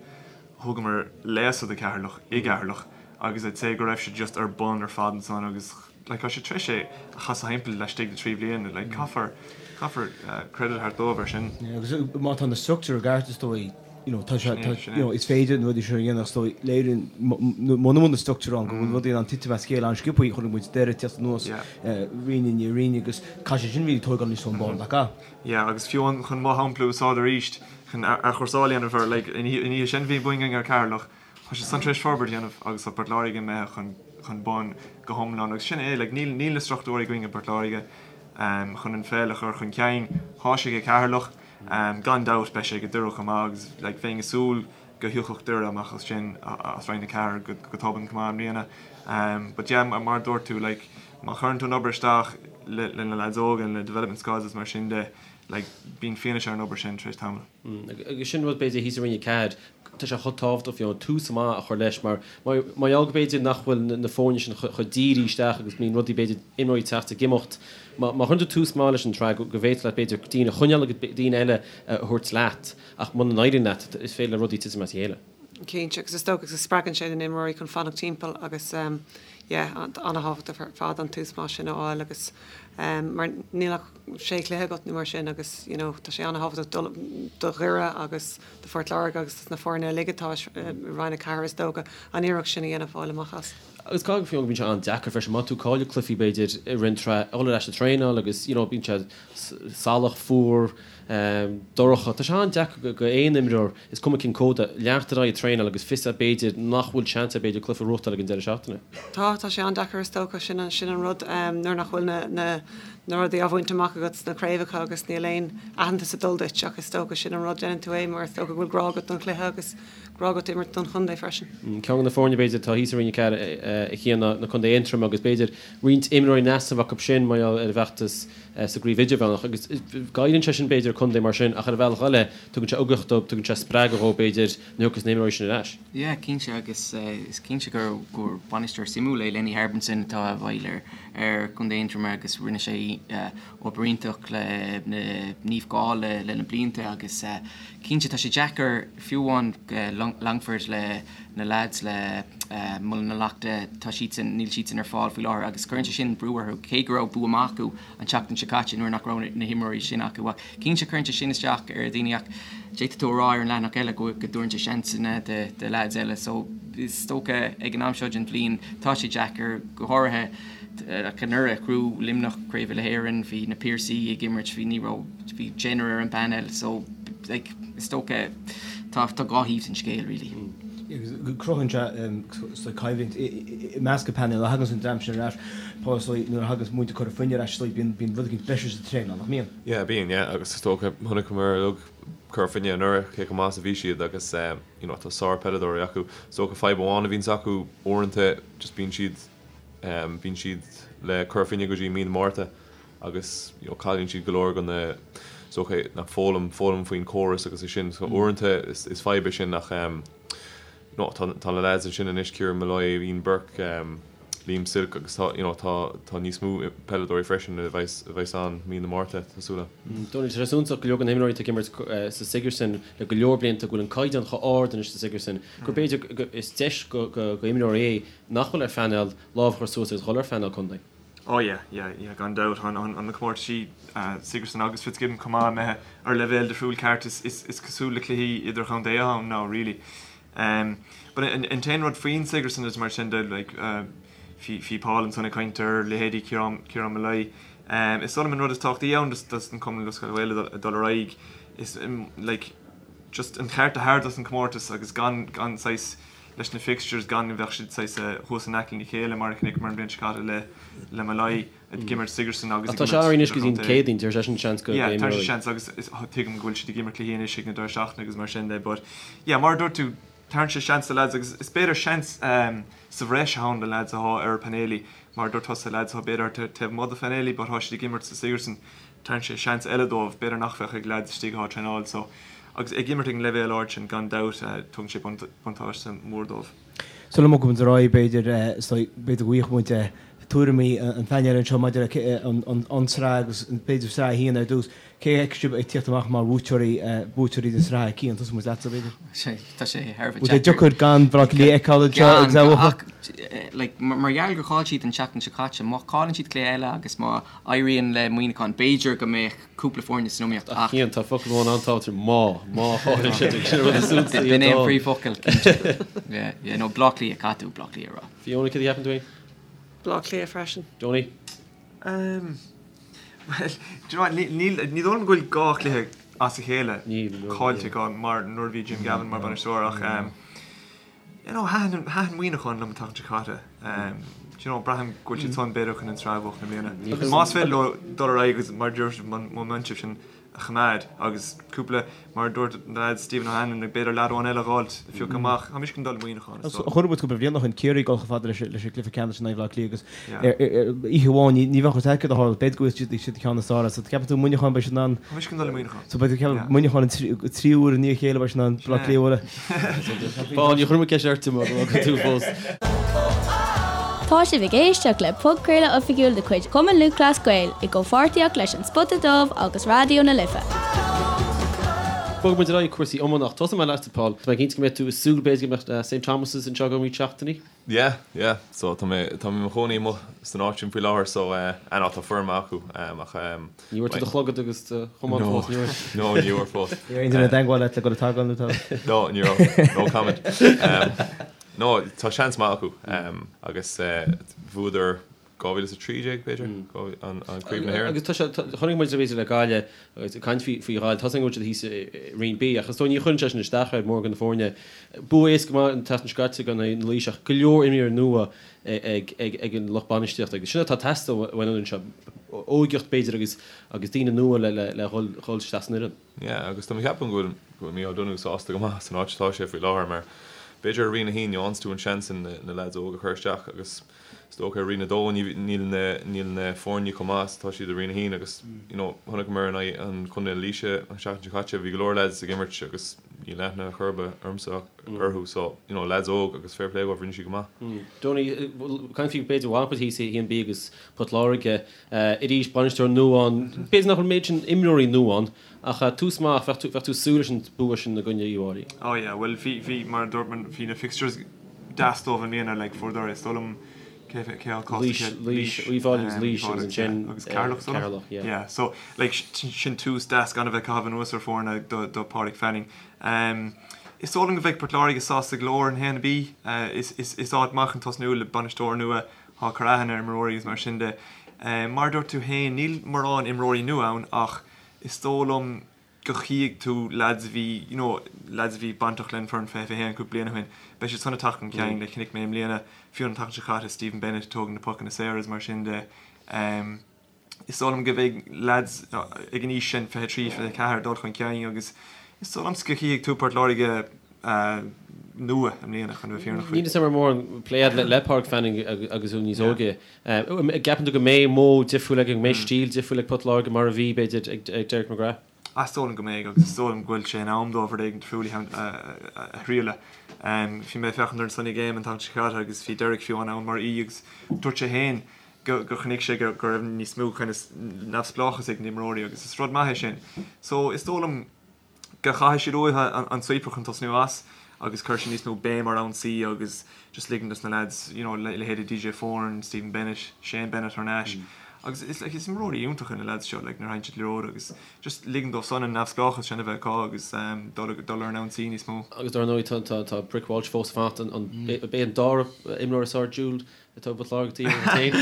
thugamar léasadh do Ceatharlach i gCeatharlach agus I'd say go raibh siad just ar bun ar fad ansan agus like tá sé tar éis é a chasadh thimpeall laistigh de thrí bhliain like caithfear caithfear credit a thabhairt dóibh ar sin. Yeah agus má tá na struchtúir i gceart is dóigh you know tá sé tá you know is féidir na rudaí seo a dhéanamh is dóigh léiríonn muna bhfuil na struchtúir ann go bhfuil rudaí in ann titim as a chéile an-sciobtha chonaic muid Doire ag teacht anuas roinn i ndiaidh roinne agus caithfidh sé sin really tógáil níos ón ball nach ea? Yeah agus fiú amháin chun mo shampla a úsáid arís chun athchúrsáil a dhéanamh air like an oíche sin bhí bua againn ar Ceatharlach Tá siad san tar éis forbairt a dhéanamh agus tá Port Láirge imithe chun chun bun go hiomlán agus sin é, like níl níl na struchtúir againn i bPort Láirge chun an pheil a chur chun cinn. Tá sé ag Ceatharlach, gan dabht beidh sé ag Doire chomh maith agus like bheinn ag súil go thiocfadh Doire amach as sin as Roinn 4 go go tobann chomh maith i mbliana. But yeah mar a dúirt tú like má chuireann tú an obair isteach le le na lads óga and le development squads is mar sin de like bíonn fianaise ar an obair sin tar éis tamaill. Agus sin rud b'fhéidir thíos i Roinn 4, tá sé chomh tábhachtach fiú tús maith a chur leis mar mar gheall go b'fhéidir nach bhfuil na foirne sin chomh dírithe isteach agus bíonn rudaí b'fhéidir imreoirí ag teacht ag imeacht. Má chuireann tú tús maith leis an tsraith go bhféadfadh leat b'fhéidir daoine a choinneáil agus daoine eile a thabhairt leat ach muna n-éiríonn leat is féidir le rudaí titim as a chéile. Cinnte, agus is dócha go spreagann sé na n-imreoirí chun fanacht timpeall agus yeah, an-thábhachtach ar fad an tús maith sin a fháil agus mar níl ach sé chluiche agat nó mar sin agus you know tá sé an-thábhachtach do do Dhoire agus do Phort Láirge agus dos na foirne uilig atá i Roinn 4 is dócha an iarracht sin a dhéanamh fáil amach as. Agus caithfidh fiú go mbíonn sé an-deacair freisin má tá tú ag cailleadh cluichí b'fhéidir i rith an tsraith a dhul ar ais ag traenáil agus you know bíonn sé salach, fuar, dorcha. Tá sé an-deacair go aon imreoir, is cuma cén cód é, leanacht ar aghaidh ag traenáil agus fios agat b'fhéidir nach bhfuil seans agat b'fhéidir cluiche a ghnóthachtáil ag an deireadh seachtaine. Tá, tá sé an-deacair is dócha, sin an, sin an rud, nuair nach bhfuil na, na, na rudaí á bhaint amach agat sna craobhacha agus níl aon aitheantas ag dul duit ach is dócha sin an rud, déanann tú é mar is dócha go bhfuil grá agat don chluiche agus grá agat imirt don chontae freisin. Ceann de na foirne b'fhéidir atá thíos i Roinn 4 a Chian ná na Contae Aontroim agus b'fhéidir roinnt imreoirí in easnamh acu sin mar gheall ar a bhfeachtas sa gcraobh idirmheánach agus goilleann sé sin b'fhéidir contae mar sin ach ar an bhealach eile tugann sé ugach dóibh, tugann sé spreagadh dhóibh b'fhéidir nuair a thiocfas na himreoirí sin ar ais. Yeah, cinnte agus is cinnte gur gur bainisteoir suimiúil é Lenny Harbinson atá i bhfeighil ar ar Chontae Aontroma agus rinne sé obair iontach le Naomh Gall le le na blianta agus cinnte tá sé deacair fiú amháin Longford le na lads le Muileann na Leachta, tá siadsan, níl siadsan ar fáil faoi láthair agus cuireann sé sin brú orthu, cé go raibh bua maith acu an tseachtain seo caite nuair nach raibh na himreoirí sin acu. Ach cinnte cuireann sé sin isteach ar dhaoine ach d'fhéadfadh tú a rá ar an leathanach eile go dtabharann sé seansanna do lads eile. So is dócha ag an am seo den bhliain tá sé deacair, go háirithe ach anuraidh ghnóthaigh Luimneach Craobh Uile-Éireann, bhí na Piarsaigh ag imirt, bhí, ní raibh, bhí deichniúr ar an bpainéal so like is dócha tá tá dhá thaobh den scéal really. Agus cruthaíonn sé coimhlint i measc an phainéil nuair a thagann an dream sin ar ais, Paul is dóigh nuair a thagann muintir Chora Finne ar ais is dóigh bíonn bíonn rud éicint breise sa traenáil, nach mbíonn? Yeah bíonn yeah agus is dócha chonaiceamar uilig Cora Finne anuraidh cé chomh maith is a bhí siad agus you know tá sár peileadóirí acu. Is dócha fadhb amháin a bhíonns acu uaireanta just bíonn siad Bíonn siad le Cora Finne go dtí mí na Márta agus you know cailleann siad go leor de na is dócha na foghlaim foghlaim faoin córas agus é sin so uaireanta is is fadhb é sin ach you know tá tá na lads ansin anois Kieran Molloy, Ian Burke, Liam Silke agus tá you know tá tá níos mó peileadóirí freisin a bheas a bheas ann mí na Márta tá súil agam. Dónal, tá sé suntasach go leor de na himreoirí atá ag imirt sa Sigerson le go leor blianta go bhfuil an caighdeán chomh ard anois sa Sigerson gur b'fhéidir go is deis go go imreoirí é nach bhfuil ar phainéal lámh a chur suas agus dhul ar phainéal contae. Oh yeah, yeah, yeah, gan dabht. Tá an na comórtaisí Sigerson agus Fitzgibbon chomh maith imithe ar leibhéal difriúil ceart. Is cosúil le cluichí idirchontae atá ann now really. But an t-aon rud faoin Sigerson is mar sin de like bhí Paul ansan ag caint ar leithéidí Ciarán Molloy. Is dóigh liom an rud is tábhachtaí ann dos an Cumann Lúthchleas Gael ag dul ar aghaidh is like just an cheart a thabhairt dos an comórtas agus gan gan saghas leis na fixtures gan go mbeadh siad saghas thuas in aice lena chéile mar a chonaiceamar an bhliain seo caite le le Molloy ag imirt Sigerson agus ag imirt. Tá sé anois go dtí an Céadaoin, deir seisean seans go Yeah, tá sé seans agus tuigim go bhfuil siad ag imirt cluichí anois ag na deireadh seachtaine agus mar sin de but yeah mar a dúirt tú tabharann sé seans do lads agus is b'fhéidir seans sa bhreis atá ann do lads atá ar phainéilí mar a dúirt tusa lads atá b'fhéidir taobh amuigh de phainéilí but tá siad ag imirt sa Sigerson Tabharann sé seans eile dóibh, b'fhéidir nach bheadh ag leaids istigh atá ag traenáil so agus ag imirt ag an leibhéal ard sin gan dabht tugann sé buntáiste mór dóibh. Sula mbogfaidh muid ar aghaidh b'fhéidir, b'fhéidir go bhfaighidh muid tuairimí an phainéil anseo maidir le an tsraith agus b'fhéidir sraith a haon ar dtús. Cé a fheiceann sibh ag tíocht amach mar bhuaiteoirí buaiteoirí na sraithe? Cian, tosóidh muid leatsa b'fhéidir. Tá sé thar a bheith deacair. Bhfuil sé deacair gan Baile Átha Cliath a fheiceáil anseo agus é a bhuachan? Like, mar gheall gur chaill siad an tseachtain seo caite, má chailleann siad cluiche eile agus má éiríonn le Muineachán, b'fhéidir go mbeadh cúpla foirne san iomaíocht ach. Cian, tá focal amháin an-tábhachtach, má. Má chailleann siad, sin an rud is suntasaí B'in é an príomhfhocal, cinnte. Yeah, yeah, no, Bleá Cliath, caithfidh tú Bleá Cliath a rá. Fiona, céard a cheapann tú féin? Bleá Cliath freisin. Donie? Um, well, do you know what, níl, ní dóigh liom go bhfuil dhá chluiche as a chéile caillte acu mar nuair a bhí Jim Gavin mar bhainisteoir ach um, You know, thaitin, thaitin Muineachán liom an tseachtain seo caite. Do you know, braithim go bhfuil siad san b'fhéidir chun an tsraith a bhuachan i mbliana. Más féidir leo dul ar aghaidh agus mar a dúirt sibh, an móiminteam sin a choimeád agus cúpla, mar a dúirt na lads, Stephen O'Hanlon, b'fhéidir leaid amháin eile a dh'fháilt, a phiocadh amach. Tá mise chun dul le Muineachán, is dóigh. Chonaic muid cúpla bliain ó shin Ciarraí ag dul chomh fada leis an gcluiche ceannais in aghaidh Bhaile Átha Cliath agus oíche amháin ní bheadh fhios agat céard a tharla, b'fhéidir go bhfuil siad ceann is fearr so ceapann tú Muineachán beidh siad in ann. Tá mise chun dul le Muineachán. So beidh ceapann Muineachán an tríú huair i ndiaidh a chéile beidh siad in ann Baile Átha Cliath a bhualadh. Paul, ní chuir mé ceist ort mar go bhfuil tú fós. Tá sibh ag éisteacht le podchraoladh oifigiúil de chuid Chumann Lúthchleas Gael i gcomhpháirtíocht leis An Spota Dubh agus Raidió na Life. Bogfaidh muid ar aghaidh cúrsaí iomána ach tosóidh mé leatsa Paul. Tá mé cinnte go mbeidh tú ag súil b'fhéidir go mbeadh St Thomas's anseo go roinnt seachtainí. Yeah, yeah. So tá mé, tá mé i mo chónaí amuigh san áit sin faoi láthair so eh, ah no, tá foireann maith acu eh, ach ehm. Ní bhfuair tú do chlogad agus do chamán No, fós, ní raibh? no, ní bhfuair fós. Ní raibh aon duine i dteagmháil leat le dul ag tógáil nó tá? No, ní raibh. No comment. Ehm, no, tá seans maith acu ehm, agus eh, bhuadar 2013 b'fhéidir, an Craobh na hÉireann. Agus tá sé, chonaic muid b'fhéidir le Gaillimh, agus ag caint faoi Ghaillimh, tá a fhios againn go bhfuil siad thíos i Roinn B, ach is dóigh ní chuireann sé sin isteach ar mórán de na foirne. Bua éasca maith an tseachtain seo caite in aghaidh na Laoise ach go leor imreoirí nua ag an lucht bainistíochta agus sin atá ag teastáil uainn an fhoireann seo, óigeacht b'fhéidir agus agus daoine nua le le dhul isteach san fhoireann. Yeah, agus tá mé ag ceapadh go bhfuil go bhfuil Micheál Donoghue sásta go maith san áit atá sé faoi láthair mar b'fhéidir i Roinn 1 gheobhanns tú an seans sin na lads óga a chur isteach agus Is dócha i Roinn 2 níl na níl na foirne chomh maith is atá siad i Roinn 1 agus you know chonaiceamar in aghaidh an Chontae na Laoise an seachtain seo caite bhí go leor lads ag imirt agus níl aithne chor ar bith ormsa orthu so you know lads óg agus fair play dóibh rinne siad go maith. Donie, caint faoi b'fhéidir bhfuil thíos i 1B agus Port Láirge arís bainisteoir nua ann b'fhéidir nach bhfuil an méid sin imreoirí nua ann ach tús maith bheadh tú bheadh tú ag súil leis an bua sin i gcoinne Uíbh Fhailí. Oh yeah bhuel bhí bhí mar a dúirt mé bhí na fixtures deas dóibh i mbliana like fuaireadar is dóigh liom cé cé acu Laois Laois Uíbh Fhailí agus Laois agus ansin agus Ceatharlach so Ceatharlach yeah. Yeah so like sin tús deas gan a bheith ag caitheamh anuas ar foirne do do Páraic Fanning. Um, is dóigh liom go mbeidh Port Láirge sásta go leor in 1B uh, is is is áit maith chun tosnú le bainisteoir nua atá ag cur aithne ar imreoirí agus mar sin de. Um, mar a dúirt tú féin níl mórán imreoirí nua ann ach is dóigh liom go chífidh tú lads a bhí, you know, lads a bhí bainteach le an foireann 20 21 cúpla bliain ó shin, beidh siad san ag teacht chun cinn, like chonaic mé i mbliana, fiú an tseachtain seo caite, Stephen Bennett ag tógaint na pocanna saora is mar sin de. Um, is dóigh liom go mbeidh lads ag an aois sin, 23, 24, ag dul chun cinn agus is dóigh liomsa go chífidh tú Port Láirge uh, nua i mbliana chun a bheith fírinneach faoi. Níl 'fhios a'm an raibh mórán plé a'd le, le Pádraig Fanning agus tú níos óige. An gceapann tú go mbeidh modh difriúil aige, go mbeidh stíl difriúil ag Port Láirge mar a bhí, b'fhéidir, ag Derek McGrath? Is dóigh liom go mbeidh agus is dóigh liom go bhfuil sé in am dóibh rud éigin difriúil a thriail. Bhí mé ag féachaint ar an Sunday Game an tseachtain seo caite agus bhí Derek fiú ann mar aoi agus dúirt sé féin go chonaic sé go raibh níos mó kind of neamhspleáchas ag na imreoirí agus is rud maith é sin. So is dóigh liom go chaithfidh siad uathu an sweeper chun tosnú as. agus chuir sé níos mó béim ar ionsaí agus just ligean dos na lads, you know, leithéidí DJ Foran, Stephen Bennett, Shane Bennett thar n-ais. Agus is like is imreoirí iontacha na lads seo like nuair a thagann siad liathróid agus just ligean dóibh san an neamhspleáchas sin a bheith acu agus dul dul ar an ionsaí níos mó. Agus dar ndóigh tá tá tá Brick Walsh fós ag fanacht an an b'é an dara imreoir is fearr Jude atá i bPort Láirge taobh féin.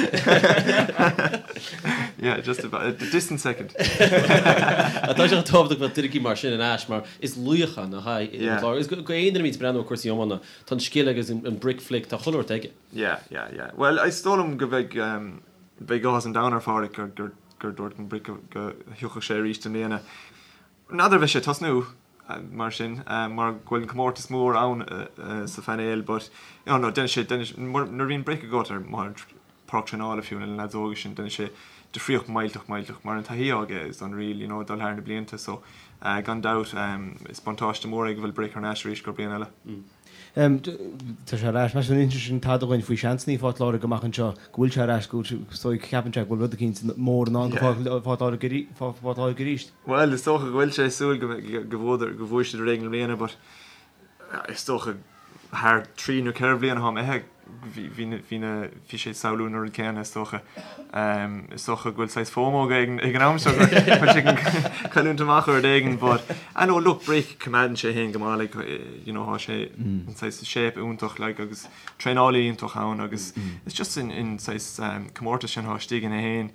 Yeah, just about, a distant second. Tá sé tábhachtach go mbeadh duine mar sin ar ais mar is laoch é nach ea i bPort Láirge. Agus go aon duine a bhíonn ag breathnú ar cúrsaí iomána, tá an scil agus an brick flick, tá chuile shórt aige. Yeah, yeah, yeah. Bhuel, is dóigh liom go mbeidh, beidh áthas an domhain ar Pháraic gur, gur, gur dúirt an Brick go, go thiocfadh sé arís i mbliana. N'fheadar an mbeidh sé ag tosnú mar sin, mar go bhfuil an comórtas mór ann sa phainéal but, you know, no, déanann sé, déanann sé, nuair a bhíonn Brick agat ar pháirc traenála fiú na lads óga sin, déanann sé difríocht millteach, millteach, mar an taithí aige is unreal, you know, dul thar na blianta so, gan dabht, is buntáiste mór é go bhfuil Brick thar n-ais arís go bliain eile. Tá sé ar ais. Meas tú an inseoidh sin tada dhuinn faoi seansanna Phort Láirge amach anseo, go bhfuil sé ar ais, go bhfuil sé, ceapann sé go bhfuil rud eicínt mór i ndán do Phort Láirge arís? Bhuel, is dócha go bhfuil sé ag súil go go bhuadar, go bhuaigh siad rud éigin i mbliana but is dócha thar 3 nó 4 bhliain atá imithe bhí, bhí na, bhí na, bhí sé ag samhlú an rud céanna is dócha. Is dócha go bhfuil saghas FOMO aige ag an am seo go bhfuil sé ag cailliúint amach ar rud éigin but I know look Brick coimeádann sé féin go maith like you know tá sé in saghas shape iontach like agus traenálaí iontach ann agus it's just an, an saghas comórtas sin atá istigh ina fhéin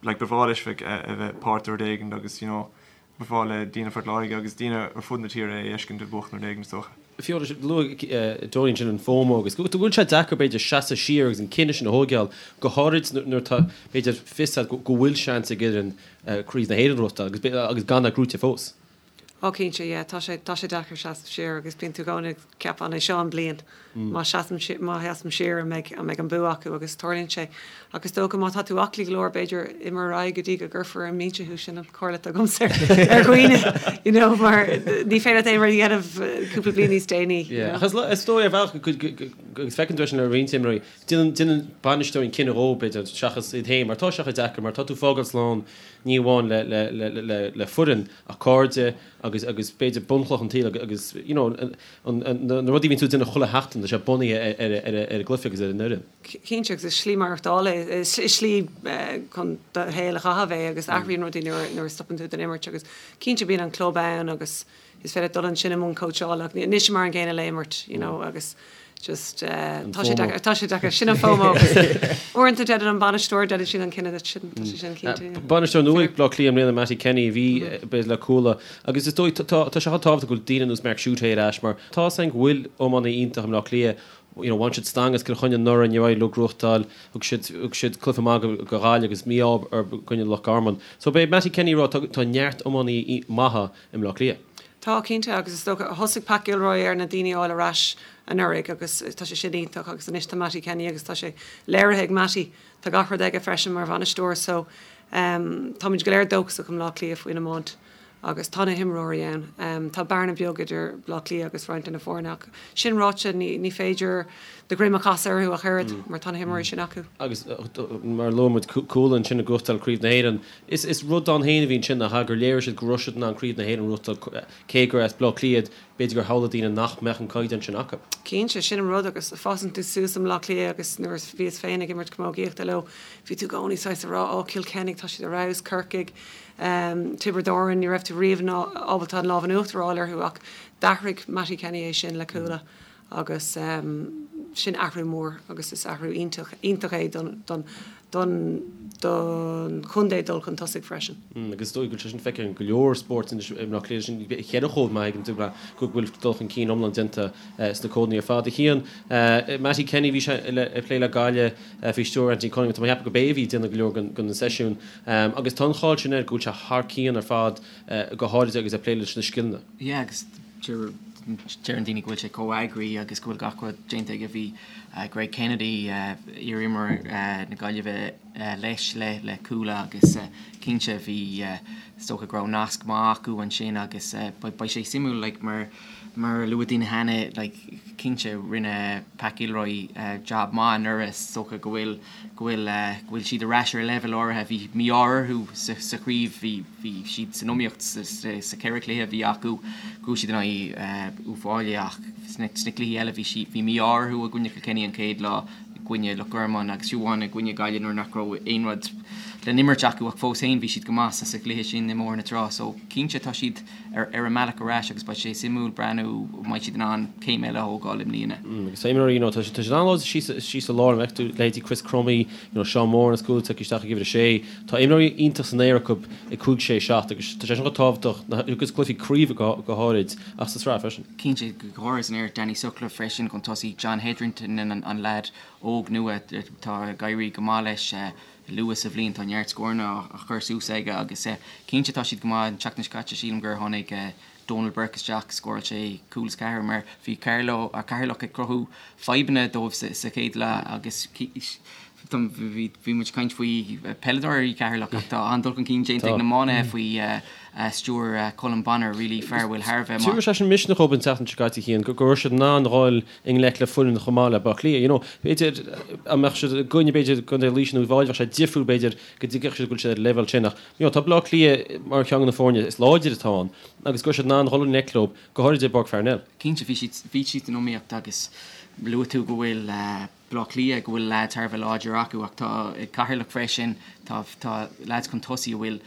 like ba bhreá leis bheith a bheith páirt de rud éigin agus you know Ba bhreá le daoine Phort Láirge agus daoine ar fud na tíre é a fheiscint ag buachan rud éigin, is dócha. Fiú, luaigh Donie ansin an FOMO agus go bhfuil sé deacair, b'fhéidir, seasamh siar agus an cinneadh sin a thóigeáil, go háirid nuair atá, b'fhéidir, fios agat go bhfuil seans ag fhoireann Craobh na hÉireann a ghnóthachtáil agus gan é gnóite fós. Ó cinnte, yeah, tá sé, tá sé deacair seasamh siar agus bíonn tú i gcónaí ag ceapadh an é seo an bliain má seasaim, má sheasaim siar an mbeidh, an mbeidh an bua acu agus tarlaíonn sé. Ach is dócha má tá tú aclaí go leor b'fhéidir imir ar aghaidh go dtí go gcuirfear ar an mbinse thú, sin an chomhairle atá agamsa ar dhaoine you know mar ní féidir leat aon rud a dhéanamh cúpla bliain níos déanaí. Yeah, ach is dóigh ar bhealach agus feiceann tú é sin le roinnt imreoirí, déanann, déanann bainisteoirí an cinneadh dhóibh b'fhéidir seachas iad féin mar tá sé chomh deacair mar tá tú fágáil slán ní amháin le, le, le, le, le foireann ach cairde agus, agus b'fhéidir bunchloch an tsaoil agus you know an, an, na rudaí a bhíonn tú ag déanamh chuile sheachtain tá sé bunaithe ar, ar, ar, ar an gcluiche agus ar an fhoireann. Cinnte, agus is slí maireachtála é, is slí chun do shaol a chaitheamh é agus athraíonn rudaí nuair a stopann tú den imirt agus cinnte bíonn an club ann agus is féidir dul ansin i mbun cóitseála ach níl sé mar an gcéanna le imirt you know agus just tá sé deacair, tá sé deacair, sin an FOMO agus uaireanta déanann an bainisteoir, déanann siad an cinneadh duit, sin, tá sé sin cinnte, yeah. Bainisteoir nua ag Bleá Cliath i mbliana, Mattie Kenny, a bhí b'fhéidir le Cuala agus is dóigh tá sé chomh tábhachtach go bhfuil daoine ar nós Mark Schutte ar ais mar tá 's againn go bhfuil iománaí iontach i mBleá Cliath you know, bhain siad stangadh as Cill Chainnigh anuraidh, níor éirigh leo gnóthachtáil, thug siad, thug siad cluiche maith go, go Gaillimh agus mí-ádh i gcoinne Loch Garman. So beidh Mattie Kenny ag rá, tá, tá neart iománaí maithe i mBleá Cliath. Tá, cinnte, agus is dócha, thosaigh Pat Gilroy ar na daoine a fháil ar ais anuraidh agus tá sé sin iontach agus anois tá Mattie Kenny agus tá sé léirithe ag Mattie, tá gach rud aige freisin mar bhainisteoir so ehm táimid go léir dóchasach i mBleá Cliath faoin iomáint. Agus tá na himreoirí ann. Tá bearna beag idir Bleá Cliath agus roinnt de na foirne ach sin ráite ní féidir do dhroim a chasadh orthu ach oiread mar tá na himreoirí sin acu. Agus mar a luaigh muid Cuala ansin ag gnóthachtáil Craobh na hÉireann. Is rud ann féin a bhí ansin nach ea gur léirigh siad go raibh siad in ann Craobh na hÉireann a ghnóthachtáil cé gur as Bleá Cliath iad, b'fhéidir gur shamhlaigh daoine nach mbeadh an caighdeán sin acu. Cinnte, sin an rud agus fásann tú suas i mBleá Cliath agus nuair a bhíos féin ag imirt camógaíochta leo bhí tú i gcónaí saghas ag rá 'Ó Cill Chainnigh tá siad ar fheabhas, Corcaigh, Tiobraid Árann, ní raibh tú riamh ábalta an lámh in uachtar a fháil orthu ach d'athraigh Mattie Kenny é sin le Cuala agus sin athrú mór agus is athrú iontach, iontach é don, don, don, don chontae dul chun tosaigh freisin. Agus is dóigh go bhfuil sé sin feicthe in go leor spóirt anois i mBleá Cliath, sin cheithre chód maith ag an dúba go bhfuil dul chun cinn iomlán déanta sna códanna ar fad. A Chian, Mattie Kenny, bhí sé ag plé le Gaillimh faoi stiúir Anthony Cunningham, tá mé ag ceapadh go b'é a bhí ag déanamh go leor den na seisiúin. Agus tá an cháil sin air go bhfuil sé thar cionn ar fad, go háirid agus é ag plé leis na scileanna. Yeah agus deireann daoine go bhfuil sé chomh eagraithe agus go bhfuil gach rud déanta aige. Bhí Greg Kennedy, iar-imreoir na Gaillimhe leis le le Cuala agus cinnte bhí is dócha go raibh nasc maith acu ansin agus beidh sé suimiúil like mar mar a luaigh daoine cheana like cinnte rinne Pat Gilroy jab maith anuraidh is dócha go bhfuil go bhfuil, go bhfuil siad ar ais ar leibhéal áirithe. Bhí mí-ádh orthu sa, sa chraobh, bhí, bhí siad san iomaíocht sa, sa, sa cheithre chluiche a bhí acu. Bhuaigh siad in aghaidh. Uíbh Fhailí ach sna cluichí eile bhí sí, bhí mí-ádh orthu i gcoinne Kilkenny an chéad lá, i gcoinne Loch Garman agus fiú amháin i gcoinne Gaillimh nuair nach raibh aon rud le n-imirt acu ach fós féin bhí siad go maith sa chluiche sin i mBóthar na Trá so cinnte tá siad ar ar a mbealach ar ais agus beidh sé suimiúil breathnú an mbeidh siad in ann céim eile a thógáil i mbliana. Agus tá imreoirí, you know, tá siad an-láidir síos síos sa lár, an bhfeiceann tú leithéidí Chris Crummey, you know, Seán Moran as cúl tagtha isteach ag uimhir a sé. Tá imreoirí iontach san aer acu ag 5, 6, 7 agus tá sé sin chomh tábhachtach agus cluichí craoibhe go háirid ach sa tsraith freisin. Cinnte, go háirithe san aer, Danny Sutcliffe freisin chun tosaigh, John Hetherington an leaid óg nua atá ag éirí go maith leis luath sa bhliain, tá neart scóranna á chur suas aige agus cinnte tá siad go maith. An tseachtain seo caite sílim gur tháinig Donal Burke isteach, scóráil sé cúl is ceathair mar bhí Carlow, Ceatharlach ag cruthú fadhbanna dóibh sa chéad leath agus bhí muid ag caint faoi peileadóirí Cheatharlach ach tá an-dul chun cinn déanta ag na iománaithe faoi stiúir Colm Bonnar, really fear a bhfuil thar a bheith maith. Tabharfaidh sé sin misneach dóibh an tseachtain seo caite Cian, go raibh siad in ann a dhul i ngleic le foireann chomh maith le Baile Átha Cliath. You know, b'fhéidir dá mbeadh siad i gcoinne b'fhéidir Contae Laoise nó Uíbh Fhailí bheadh sé difriúil b'fhéidir go dtuigfeadh siad go bhfuil siad ar an leibhéal sin ach you know, tá Baile Átha Cliath mar cheann de na foirne is láidre atá ann agus go raibh siad in ann a dhul i ngleic leo, go háirid i bPáirc Pharnell. Cinnte bhí siad bhí siad san iomaíocht agus luaigh tú go bhfuil Baile Átha Cliath go bhfuil leaids thar a bheith láidir acu ach tá ag Ceatharlach freisin tá tá leaids chun tosaigh a bhfuil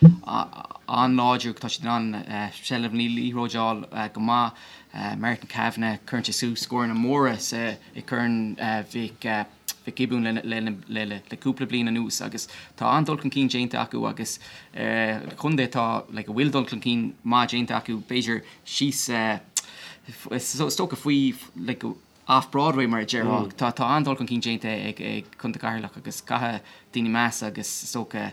an-láidir tá siad in ann seilbh na liathróide a fháil go maith. Martin Kavanagh cuireann sé suas scóranna móra sa i gCorn Mhic Mhic Giobúin le le le le cúpla bliain anuas agus tá an-dul chun cinn déanta acu agus contae atá like a bhfuil dul chun cinn maith déanta acu b'fhéidir síos is dócha faoi like off Broadway mar a déarfá. Tá tá an-dul chun cinn déanta ag ag Contae Cheatharlach agus caithfidh daoine meas agus is dócha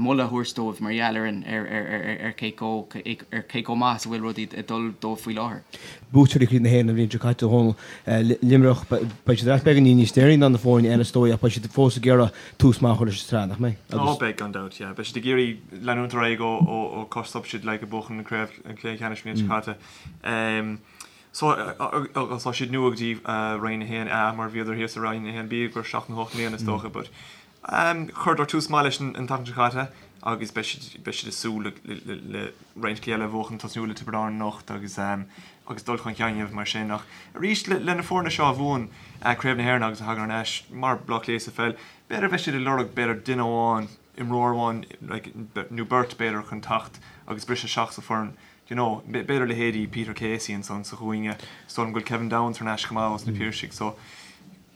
moladh a thabhairt dóibh mar gheall ar an ar ar ar ar cé chomh ar cé chomh maith is a bhfuil rudaí ag dul dóibh faoi láthair. Buaiteoirí Chraobh na hÉireann an bhliain seo caite, a Dhónaill, Luimneach, beidh siad ar ais beagáinín níos deireanaí ná na foirne eile is dóigh ach beidh siad fós ag iarraidh tús maith a chur leis an tsraith, nach mbeidh? Ó beidh gan dabht, yeah. Beidh siad ag iarraidh leanúint ar aghaidh ó ó ó cá stop siad like ag buachan an craobh an cluiche ceannais an bhliain seo caite. So, agus tá siad nua go dtí Roinn 1A mar bhíodar thíos i Roinn 1B go 7 nó 8 mbliana is dócha but chuireadar tús maith leis an tseachtain seo caite agus beidh siad beidh siad ag súil le le le roinnt cluichí eile a bhuachan tosnú le Tiobraid Árann anocht agus agus dul chun cinn a dhéanamh mar sin ach arís le le na foirne seo a bhuann Craobh na hÉireann agus a thagann ar ais mar Bleá Cliath sa pheil b'fhéidir beidh siad ag lorg b'fhéidir duine amháin imreoir amháin like nó beirt b'fhéidir chun teacht agus briseadh isteach sa foireann Do you know, b'fhéidir leithéidí Peter Casey ansan sa chúinne, is dóigh liom go bhfuil Kevin Downes thar n-ais chomh maith ós na Piarsaigh, so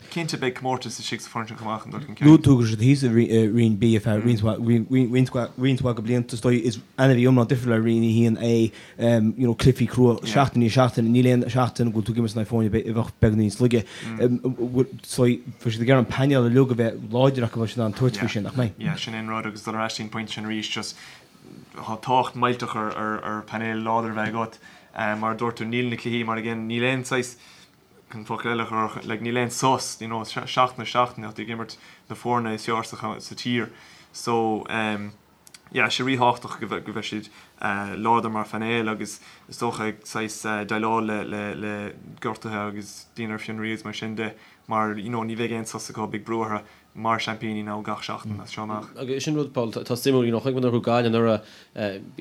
cinnte beidh comórtas istigh sa foireann sin chomh maith chun dul chun cinn. Luaigh tú go raibh siad thíos i Roinn B ar feadh roinnt mhaith roinnt mhaith de bhlianta, is dóigh is ainmhí iomlán difriúil le Roinn 1A, you know, cluichí crua seachtain i ndiaidh seachtaine, níl aon seachtain go bhfuil tú ag imirt in aghaidh foirne a bheadh beagán níos laige. So bheadh siad ag iarraidh an painéal uilig a bheith láidir acu, bheadh siad in ann tabhairt faoi sin, nach mbeidh? Yeah, sin é an rud agus dul ar ais dtí'n pointe sin arís, just Tá tábhacht millteach ar painéal láidir a bheith agat. Mar a dúirt tú, níl na cluichí mar again, níl aon saghas, chun focal eile a chur, like níl aon sos, you know, seachtain ar seachtain tá tú ag imirt na foirne is fearr sa tír. So, yeah, sé ríthábhachtach go mbeidh siad láidir mar phainéal agus is dócha ag saghas déileáil le le gortuithe agus daoine ar fionraí agus mar sin de mar, you know, ní bheidh aon sos acu, beidh brú orthu. mar seaimpíní now gach seachtain as seo amach. Agus sin rud, Paul, atá suimiúil, you know, chonaic muid nuair a chuaigh Gaillimh anuraidh,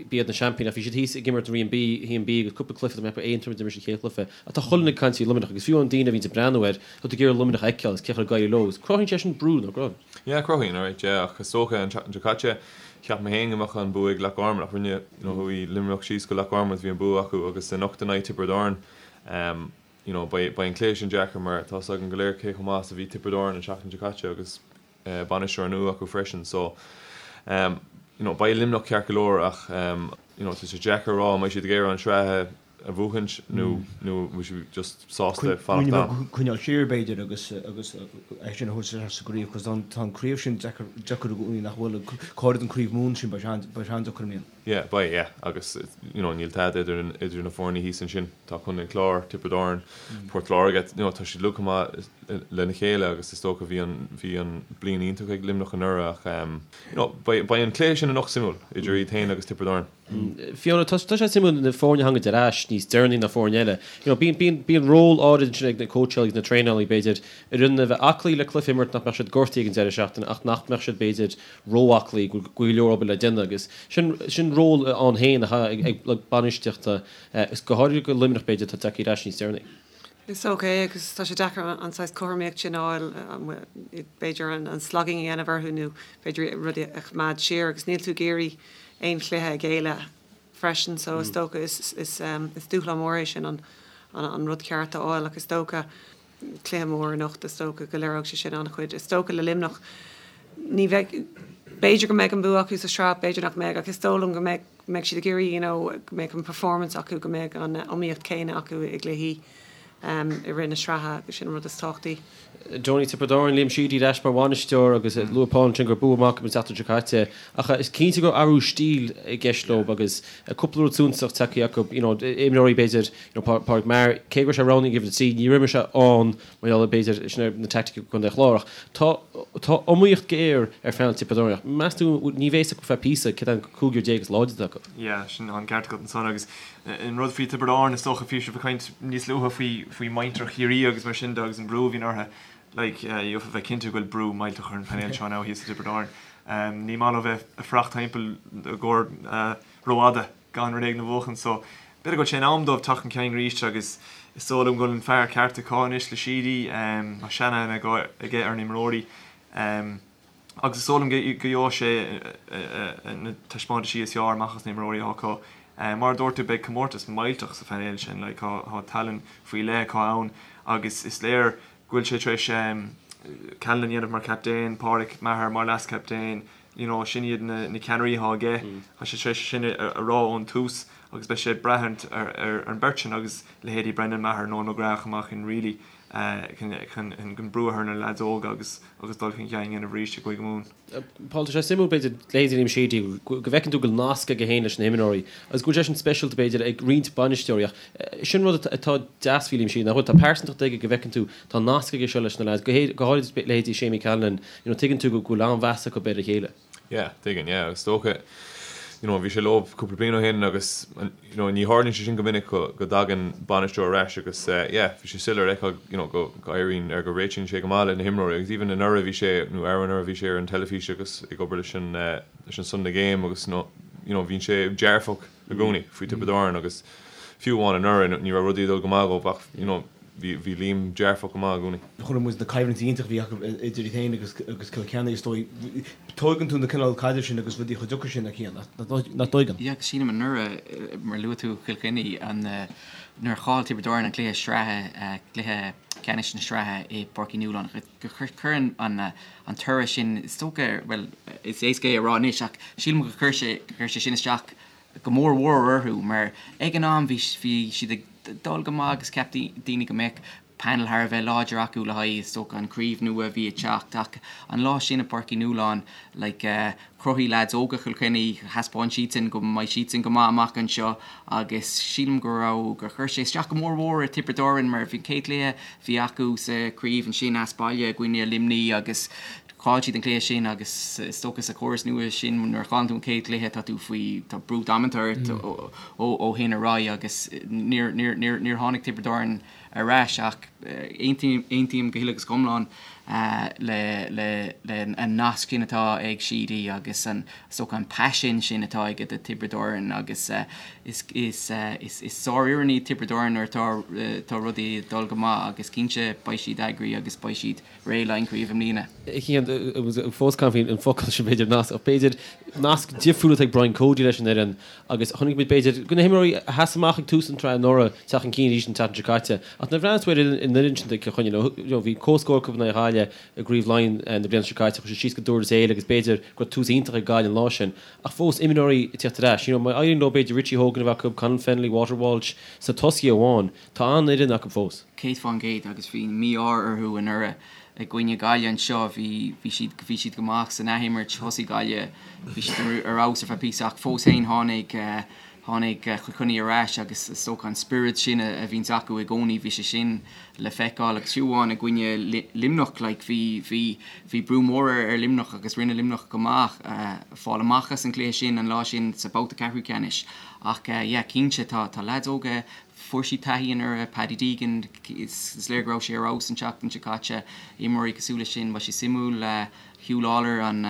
b'iad na seaimpíní ach bhí siad thíos ag imirt i Roinn B, 1B agus cúpla cluiche, tá mé ag ceapadh Aontroim a d'imir siad an chéad chluiche. Ach tá chuile dhuine ag caint faoi Luimneach agus fiú amháin daoine a bhíonns ag breathnú air, tá tú ag iarraidh Luimneach a fheiceáil agus cén chaoi ar éirigh leo agus cruthaíonn sé sin brú, nach gcruthaíonn? Yeah, cruthaíonn, alright, yeah, ach is dócha an tseachtain seo caite, cheap mé féin go mbeadh an bua ag Loch Garman ach rinne, you know, chuaigh Luimneach síos go Loch Garman agus bhí an bua acu agus anocht in aghaidh Tiobraid Árann, you know, beidh, beidh an cluiche sin deacair mar tá 's againn go léir cé chomh maith is a bhí Tiobraid Árann an tseachtain seo caite agus bainisteoir nua acu freisin so um, you know, beidh Luimneach ceart go leor ach um, you know, tá sé deacair a rá an mbeidh siad ag iarraidh an tsraith a bhuachaint nó nó an bhfuil siad just sásta fanacht ann. Coinneáil siar b'fhéidir agus agus é sin a thabhairt isteach sa gcraobh cos tá an craobh sin deacair deacair i gcónaí nach bhfuil go háirid an craobh Mumhan sin beidh sé beidh sé an-deacair i mbliana. Yeah, beidh, yeah. Agus, you know, níl tada idir, idir na foirne thíos ansin. Tá Contae an Chláir, Tiobraid Árann, Port Láirge, you know, tá siad uilig chomh maith lena chéile agus is dócha bhí an, bhí an bliain iontach ag Luimneach anuraidh ach, you know, beidh, beidh an cluiche sin anocht suimiúil idir iad féin agus Tiobraid Árann. Fiona, tá sé suimiúil na foirne a thagann ar ais níos deireanaí ná foirne eile. You know, bíonn, bíonn, bíonn ról áirid ansin ag na cóitseálaí agus na traenálaí, b'fhéidir, oireann a bheith aclaí le cluiche a imirt nach mbeadh siad gortaithe ag an deireadh seachtaine ach nach mbeadh siad, b'fhéidir, ró-aclaí, go bhfuil go leor obair le déanamh agus sin, sin ról ann féin atá ag, ag lucht bainistíochta, is go háirithe do Luimneach, b'fhéidir, atá tagtha ar ais níos deireanaí. Is dócha é agus tá sé deacair an saghas cothromaíocht sin a fháil, b'fhéidir an slogging a dhéanamh orthu nó b'fhéidir rudaí a choimeád siar agus níl tú ag iarraidh aon chluiche a ghéilleadh freisin so is dócha is dúshlán mór é sin an rud ceart a fháil ach is dócha cluiche mór anocht is dócha go léireoidh sé sin an-chuid. Is dócha le Luimneach ní bheidh, b'fhéidir go mbeidh an bua acu sa sraith, b'fhéidir nach mbeidh ach is dóigh liom go mbeidh go mbeidh siad ag iarraidh you know go mbeidh an performance acu, go mbeidh an iomaíocht céanna acu i gcluichí i rith na sraithe agus sin an rud is tábhachtaí. Donie Tiobraid Árann, Liam Sheedy ar ais mar bhainisteoir agus luaigh Paul ansin gur bua maith acu an tseachtain seo caite ach is cinnte go raibh athrú stíl i gceist leo agus cúpla rud suntasach tagtha acu, you know imreoirí b'fhéidir, you know Pádraig Maher, cé go raibh sé roghnaithe ag uimhir 3 níor imir sé ann Mar gheall ar, b'fhéidir, sin ar na teaicticí Contae an Chláir ach tá tá iomaíocht ghéar ar phainéal Tiobraid Árann ach meas tú ní bheidh a fhios acu feadh píosa cé an cúigear is láidre atá acu. Yeah, sin an ceart agat ansan agus an rud faoi Tiobraid Árann is dócha bhí sibh ag caint níos luaithe faoi faoi muintir Chiarraí agus mar sin de agus an brú a bhíonn orthu like gheofá bheith cinnte go bhfuil brú millteach ar an phainéal seo now thíos i dTiobraid Árann. Ní maith leo bheith ag fuireacht timpeall i gcomhair rófhada. gan rud éigin a bhuachan so b'fhéidir go bhfuil sé in am dóibh teacht chun cinn arís agus is dóigh liom go bhfuil an fear ceart acu anois le Sheedy, tá seanaithne aige ar na himreoirí agus is dóigh liom go gheobhaidh sé na taispeántaisí is fearr amach as na himreoirí atá acu. Mar a dúirt tú beidh comórtas millteach sa phainéal sin, like tá tallann faoi leith acu ann agus is léir go bhfuil sé tar éis Callanan a dhéanamh mar chaptaen, Pádraic Maher mar leaschaptaen, you know sin iad na na ceannairí atá aige, tá sé tar éis sin a rá ón tús agus beidh sé ag brath ar ar an beirt sin agus leithéidí Brendan Maher, Noel McGrath chomh maith chun really chun chun chun brú a chur ar na leaids óga agus agus dul chun cinn a dhéanamh arís i gCúige Mumhan. Paul, tá sé suimiúil b'fhéidir leithéidí Liam Sheedy go bhfeiceann tú go bhfuil nasc aige féin leis na himreoirí agus go bhfuil sé sin speisialta b'fhéidir ag roinnt bainisteoirí ach sin rud atá deas faoi Liam Sheedy nach bhfuil, tá pearsantacht aige go bhfeiceann tú tá nasc aige seo leis na lads, go háirid leithéidí Seamie Callanan, you know tuigeann tú go bhfuil an-mheas acu ar a chéile. Yeah, tuigeann, yeah, agus is dócha, you know, bhí sé leo cúpla bliain ó shin agus, you know, ní tharlaíonn sé sin go minic go, go dtagann bainisteoir ar ais agus eh, yeah, bhí sé soiléir a fheiceáil, you know, go, go éiríonn, ar go réitíonn sé go maith le na himreoirí agus even anuraidh bhí sé, nó arú-anuraidh bhí sé ar an teilifís agus ag obair leis an eh, leis an Sunday Game agus, you know, you know, bhíonn sé dearfach i gcónaí faoi Tiobraid Árann agus fiú amháin anuraidh ní raibh rudaí ag dul go maith dhóibh ach, you know, bhí, bhí Liam dearfach go maith i gcónaí. Chonaic muid na coimhlintí iontach a bhí acu idir iad féin agus agus Cill Chainnigh is dóigh. Tóigeann tú na cineál caidrimh sin agus rudaí chomh deacair sin a Chian, nach dtóigeann? Yeah, agus sílim anuraidh, mar luaigh tú Cill Chainnigh, an, nuair a chaill Tiobraid Árann an cluiche sraithe, cluiche ceannais na sraithe i bPáirc Uí Nualláin, gur chuir an, an toradh sin, is dócha, bhuel, is éasca é a rá anois ach sílim gur chuir sé, gur chuir sé sin isteach go mór mhór orthu mar ag an am bhí, bhí siad ag dul go maith agus cheap daoine go mbeadh panel thar a bheith láidir acu le haghaidh, is dócha, an chraobh nua a bhí ag teacht ach an lá sin i bPáirc Uí Nualláin, like, chruthaigh leaids óga Chill Chainnigh, thaispeáin siadsan go mbeidh siadsan go maith amach anseo agus sílim go raibh, gur chuir sé isteach go mór mhór ar Tiobraid Árann mar bhí an chéad chluiche a bhí acu sa chraobh ansin as baile i gcoinne Luimnigh agus chaill siad an cluiche sin agus is dócha sa chóras nua sin nuair a chailleann tú an chéad chluiche tá tú faoi, tá brú damanta ort ó shin ar aghaidh agus níor, níor, níor, níor tháinig Tiobraid Árann ar ais ach aontaím, aontaím go huile agus go hiomlán le, le, le an nasc sin atá ag Sheedy agus an, is dócha an paisean sin atá aige do Tiobraid Árann agus is, is, is, is sárfhoireann iad Tiobraid Árann nuair atá, tá rudaí ag dul go maith agus cinnte beidh siad eagraithe agus beidh siad réidh le haghaidh an chraobh i mbliana. Cian, fós gan faoin focal sin b'fhéidir nasc, ach b'fhéidir nasc difriúil atá ag Brian Cody leis an fhoireann agus chonaic muid b'fhéidir go na himreoirí a sheas amach ag tús an tsraith anuraidh teacht chun cinn arís an tseachtain seo caite. Ach nuair a bhreathnaíonn tú ar an fhoireann sin do Chill Chainnigh, you know, bhí comhscór acu in aghaidh Ghaillimh i gCraobh Laighean na bliana seo caite, chuaigh siad síos go Durlas Éile agus b'fhéidir go raibh tús iontach ag Gaillimh an lá sin. Ach fós imreoirí ag teacht ar ais, you know, má éiríonn leo b'fhéidir Richie Hogan a bheith acu, Conal Fennelly, Walter Walsh sna tosaithe amháin, Tá an-fhoireann acu fós. 100% agus bhí mí-ádh orthu anuraidh i gcoinne Gaillimh anseo. Bhí, bhí siad, bhí siad go maith san athimirt, thosaigh Gaillimh, bhí siad ar fheabhas ar feadh píosa ach fós féin tháinig. Tháinig Cill Chainnigh ar ais agus is dócha an spiorad sin a bhíonns acu i gcónaí, bhí sé sin le feiceáil agus fiú amháin i gcoinne Luimneach like bhí, bhí, bhí brú mór ar Luimneach agus rinne Luimneach go maith fáil amach as an gcluiche sin an lá sin sa babhta ceathrú ceannais ach yeah cinnte tá, tá leaids óga, fuair siad taithí anuraidh, Paddy Deegan, is léir go raibh sé ar fheabhas an tseachtain seo caite, imreoirí cosúil leis sin, beidh sé suimiúil. Huw Lawlor an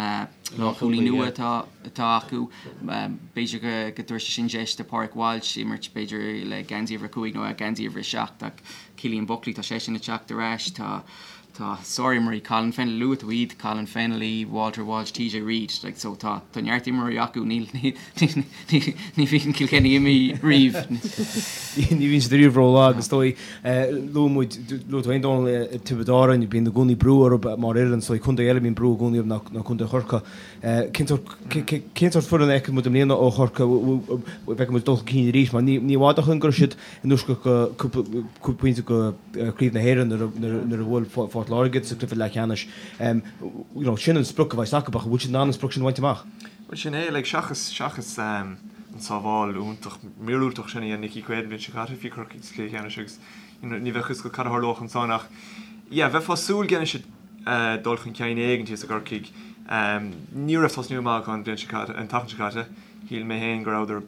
lánchúlaí nua atá acu. B'fhéidir go dtabharfaidh sé sin deis do Pádraig Walsh imirt b'fhéidir le geansaí uimhir 5 nó geansaí uimhir 7 ach Cillian Buckley tá seisean ag teacht ar ais. Tá tá sárimreoirí Colin Fennelly, luaigh tú iad, Colin Fennelly, Walter Walsh, TJ Reid like so tá tá neart imreoirí acu níl ní ní bhíonn Cill Chainnigh imithe riamh. Ní bhíonn siad riamh rólag is dóigh. Luaigh muid, luaigh tú féin Dónal, Tiobraid Árann, bíonn i gcónaí brú orthu mar fhoireann, is dóigh contae eile a mbíonn brú i gcónaí orthu ná Contae Chorcaí. Cén sórt, cén sórt foireann a fheiceann muid i mbliana ó Chorcaigh, an bhfeicfidh muid dul chun cinn arís mar ní i bhfad ó shin go raibh siad in uisce go cúpla, cúpla pointe go Craobh na hÉireann nuair a, nuair a bhuail Phort Láirge iad sa chluiche leathcheannais. You know, sin an sprioc a bheas acu ach an bhfuil siad in ann an sprioc sin a bhaint amach? Bhuel sin é, like, seachas, seachas an sábháil iontach míorúilteach sin a dhein Nicky Quaid an bhliain seo caite, bhí Corcaigh sa chluiche ceannais agus you know, ní bheadh fhios agat cad a tharlódh ansan ach yeah, bheifeá ag súil go ndéanfaidh siad dul chun cinn éigin thíos i gCorcaigh. Ní raibh tosnú maith acu an bhliain seo caite, an tseachtain seo caite. Shíl mé féin go rabhadar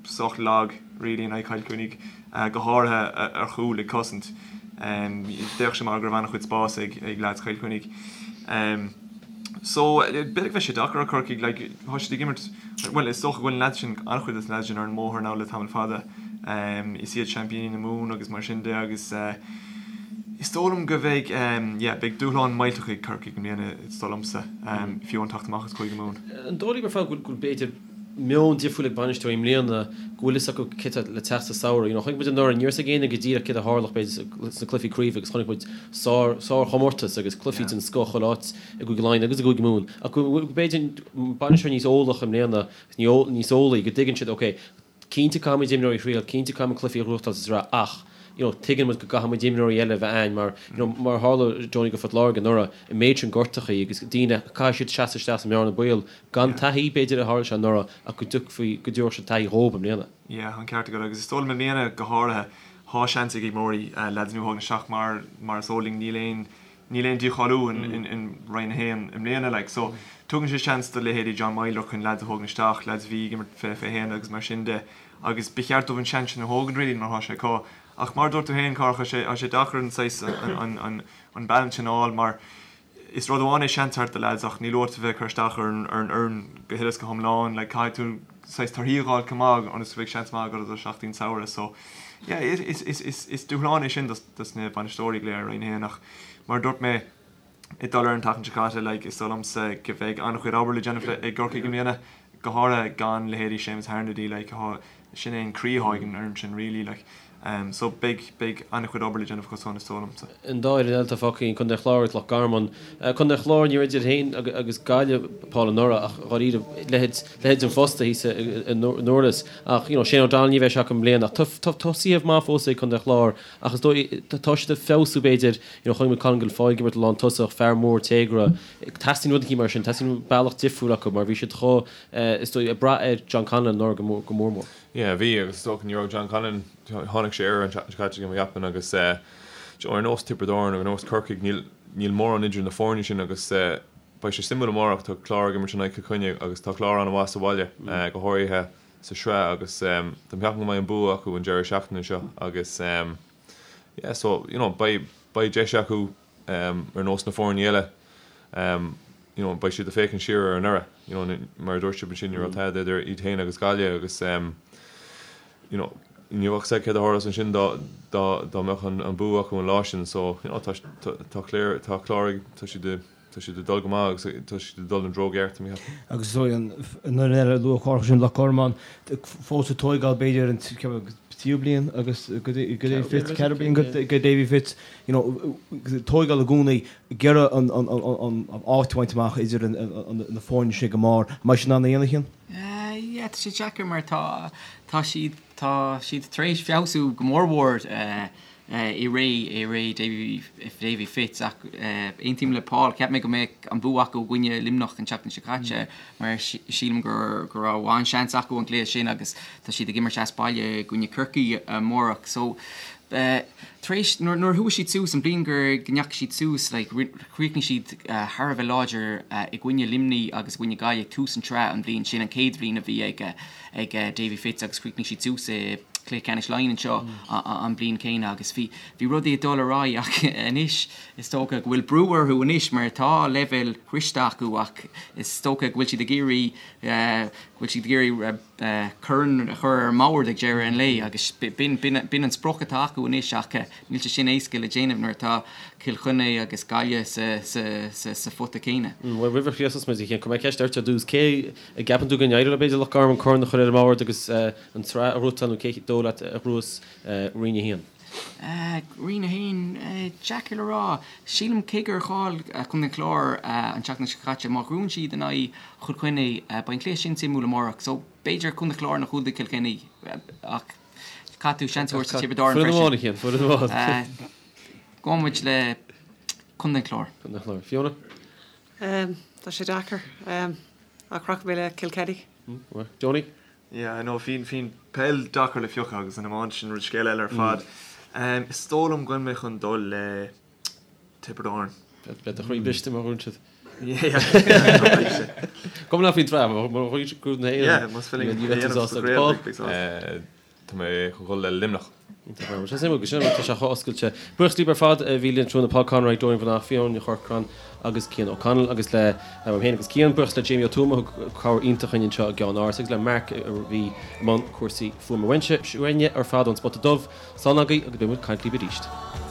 sách lag really in aghaidh Chill Chainnigh, go háirithe ar chúl ag cosaint. D'fhéach sé mar go raibh an-chuid spáis ag ag lads Chill Chainnigh. So, b'fhéidir go mbeidh sé deacair ar Chorcaigh, like, tá siad ag imirt, bhuel, is dócha go bhfuil na lads sin, an-chuid des na lads sin ar an mbóthar now le tamall fada. Is iad seaimpíní na Mumhan agus mar sin de agus is dóigh liom go mbeidh, yeah, beidh dúshlán millteach ag Corcaigh i mbliana, is dóigh liomsa, fiú amháin teacht amach as Cúige Mumhan. An dóigh libh ar fad go bhfuil, b'fhéidir, meon difriúil ag bainisteoirí i mbliana, go bhfuil fhios acu céard atá le teacht sa samhradh. You know, chonaic muid anuraidh, ní raibh fhios ag éinne go díreach céard a tharlódh b'fhéidir sna cluichí craoibhe agus chonaic muid sár, sárchomórtas agus cluichí den scoth chuile áit i gCúige Laighean agus i gCúige Mumhan. Ach go bhfuil b'fhéidir bainisteoirí níos eolach i mbliana, níos eolaí, go dtuigeann siad, ok, cinnte caithfimid imreoirí a thriail, cinnte caithfimid cluichí a ghnóthachtáil sa tsraith ach, you know, tuigeann muid go gcaithfidh muid imreoirí eile a bheith a'ainn mar, you know, mar a tharla Johnny go Phort Láirge anuraidh, an méid sin gortachaí agus daoine, caithfidh siad seasamh isteach sa mbearna baol gan taithí, b'fhéidir, a tharla sé anuraidh ach go dtiocfaí, go dtabharfadh sé taithí dhóib i mbliana. Yeah, an ceart agat agus is dóigh liom i mbliana go háirithe, thá seans ag imreoirí, lads nua a thógaint isteach mar, mar is eol linn níl aon, níl aon dícháiliú in, in Roinn 1 i mbliana like so tugann sé seans do leithéidí John Meyler chun lads a thógaint isteach, lads a bhí ag imirt 20, 21 agus mar sin de. Agus ba cheart dóibh an seans sin a thógaint really mar thá sé acu. Ach mar a dúirt tú féin, Cárthach, tá sé, tá sé deacair an saghas, an, an, an balance sin a fháil mar is rud amháin é seans a thabhairt do lads ach níl uait a bheith ag cur isteach ar an, ar an fhoireann go huile is go hiomlán. Like caithfidh tú saghas torthaí a dh'fháil chomh maith ionas go mbeidh seans maith agat do sheachtain samhradh. So yeah, is, is, is, is, is dúshlán é sin dos, dos na bainisteoirí go léir i Roinn 1 ach mar a dúirt mé, ag dul ar an tseachtain seo caite, like, is dóigh liomsa go mbeidh an-chuid obair le déanamh ag gCorcaigh i mbliana, go háirithe gan leithéidí Séamus Harnedy, like, thá, sin é an croí athá ag an fhoireann sin really, like. Um, so beidh, beidh an-chuid obair le déanamh acu san, is dóigh liomsa. An dá fhoireann eile atá fágtha againn, Contae an Chláir agus Loch Garman. Contae an Chláir, ní raibh idir féin agus Gaillimh, Paul, anuraidh ach dháiríre, leithéid, leithéid an phosta thíos i nDurlas. Ach, you know, Shane O'Donnell ní bheidh sé acu i mbliana ach tá, tá tosaithe maith fós ag Contae an Chláir ach is dóigh, tá siad ag feabhsú b'fhéidir, You know, chonaic muid Colin Guilfoyle ag imirt lántosach, fear mór téagartha. Teastaíonn rud eicínt mar sin, teastaíonn bealach difriúil acu mar bhí siad chomh, is dóigh, ag brath ar John Conlon anuraidh go mór, go mór mór. Yeah, bhí agus is dócha ní raibh John Conlon, tháinig sé air an tseachtain seo caite mo cheapaim agus eh, you know, ar nós Tiobraid Árann ar nós Corcaigh níl, níl mórán idir na foirne sin agus eh, beidh sé suimiúil amárach, tá Clár ag imirt in aghaidh Chill Chainnigh agus tá Clár an-mhaith sa bhaile eh, go háirithe sa sraith agus eh, tá mé ag ceapadh go mbeidh an bua acu an deireadh seachtaine seo agus eh, Yeah so you know beidh beidh deis acu um ar nós na foirne eile um you know beidh siad ag féachaint siar ar anuraidh you know mar a dúirt sibh ansin ní raibh tada idir iad féin agus Gaillimh agus um you know ní bheadh a fhios agat céard a tharlós ansin dá dá dá mbeadh an an bua acu an lá sin so you know tá tá tá Clár tá Clár ag tá siad ag Tá siad ag dul go maith agus tá siad ag dul an treo gceart, tá mé ag ceapadh. Agus is dóigh an fhoireann eile a luadh Cárthach sin Loch Garman fós ag tóigeáil b'fhéidir an tríú bliain agus go Davy Fitz, ceathrú bliain go Davy Fitz, you know, tóigeáil i gcónaí ag iarraidh an áit a bhaint amach idir na foirne sin ag an mbarr. An mbeidh siad in ann a dhéanamh Cian? Yeah, tá sé deacair mar tá tá siad tá siad tar éis feabhsú go mór mhór. I ré, i ré Davy, Davy Fitz ach aontaím le Paul, cheap mé go mbeadh an bua acu i gcoinne Luimneach an tseachtain seo caite mar sílim go go raibh an-seans acu an cluiche sin agus tá siad ag imirt as baile i gcoinne Corcaí amárach. So tar éis, nuair nuair a chuaigh siad suas, an bhliain gur go ndeachaigh siad suas, like chríochnaigh siad thar a bheith láidir i gcoinne Luimnigh agus i gcoinne Gaillimh tús an tsraith an bhliain sin, an chéad bhliain a bhí ag ag Davy Fitz agus chríochnaigh siad suas i gcluiche ceannais Laighean anseo an bhliain chéanna agus bhí bhí rudaí ag dul ar aghaidh ach anois is dócha go bhfuil brú orthu anois mar tá leibhéal sroichte acu ach is dócha go bhfuil siad ag iarraidh go bhfuil siad ag iarraidh corn a chur ar an mbord ag deireadh an lae agus b'in b'in an sprioc atá acu anois ach níl sé sin éasca le déanamh nuair atá Cill Chainnigh agus Gaillimh sa sa sa phota céanna. Bhuel roimh a chríochnós muid a Chian, cuirfidh mé ceist ort ar dtús. Cé a gceapann tú go n-éireoidh leo b'fhéidir Loch Garman corn a chur ar an mbord agus an tsraith a ghnóthachtáil nó cé dóigh leat a ghnóthós Roinn 1? Roinn 1, deacair le rá. Sílim cé gur chaill Contae an Chláir an tseachtain seo caite, má ghnóthaíonn siad in aghaidh Chill Chainnigh, beidh an cluiche sin suimiúil amárach. So b'fhéidir Contae an Chláir nó Contae Chill Chainnigh ach caithfidh tú seans a thabhairt do Tiobraid Árann freisin. Foireann amháin a Chian, foireann amháin. Gabhfaidh muid le Contae an Chláir. Contae an Chláir. Fiona? Tá sé deacair. Ach rachaidh mé le Kilkenny. Johnny? Yeah, I know, bíonn, bíonn peil deacair le piocadh agus an iomáint sin rud scéal eile ar fad. Is dóigh liom go bhfuil mé chun dul le Tiobraid Árann. Beidh do chroí briste má ghnóthaíonn siad. Go mbeadh faoin tsraith, má ghnóthaíonn siad Craobh na hÉireann. Yeah, más féidir linn é a dhéanamh sa chraobh, beidh sásta. Tá mé chun dul le Luimneach. Iontach ar fad. Sé suimiúil go sin tá sé chomh oscailte. Buíochas libh ar fad a bhí linn tráthnóna Paul Conroy, Dorian Breathnach, Fiona Ní Chorcráin agus Cian O'Connell agus le uaim féin agus Cian. Buíochas le Jamie Ó Tuama a thug cabhair iontach dhúinn anseo i gceann áras agus le Mark a bhí i mbun cúrsaí fuaime. Uaimse, uainne ar fad ón Spota Dubh, slán agaibh agus beidh muid ag caint libh arís.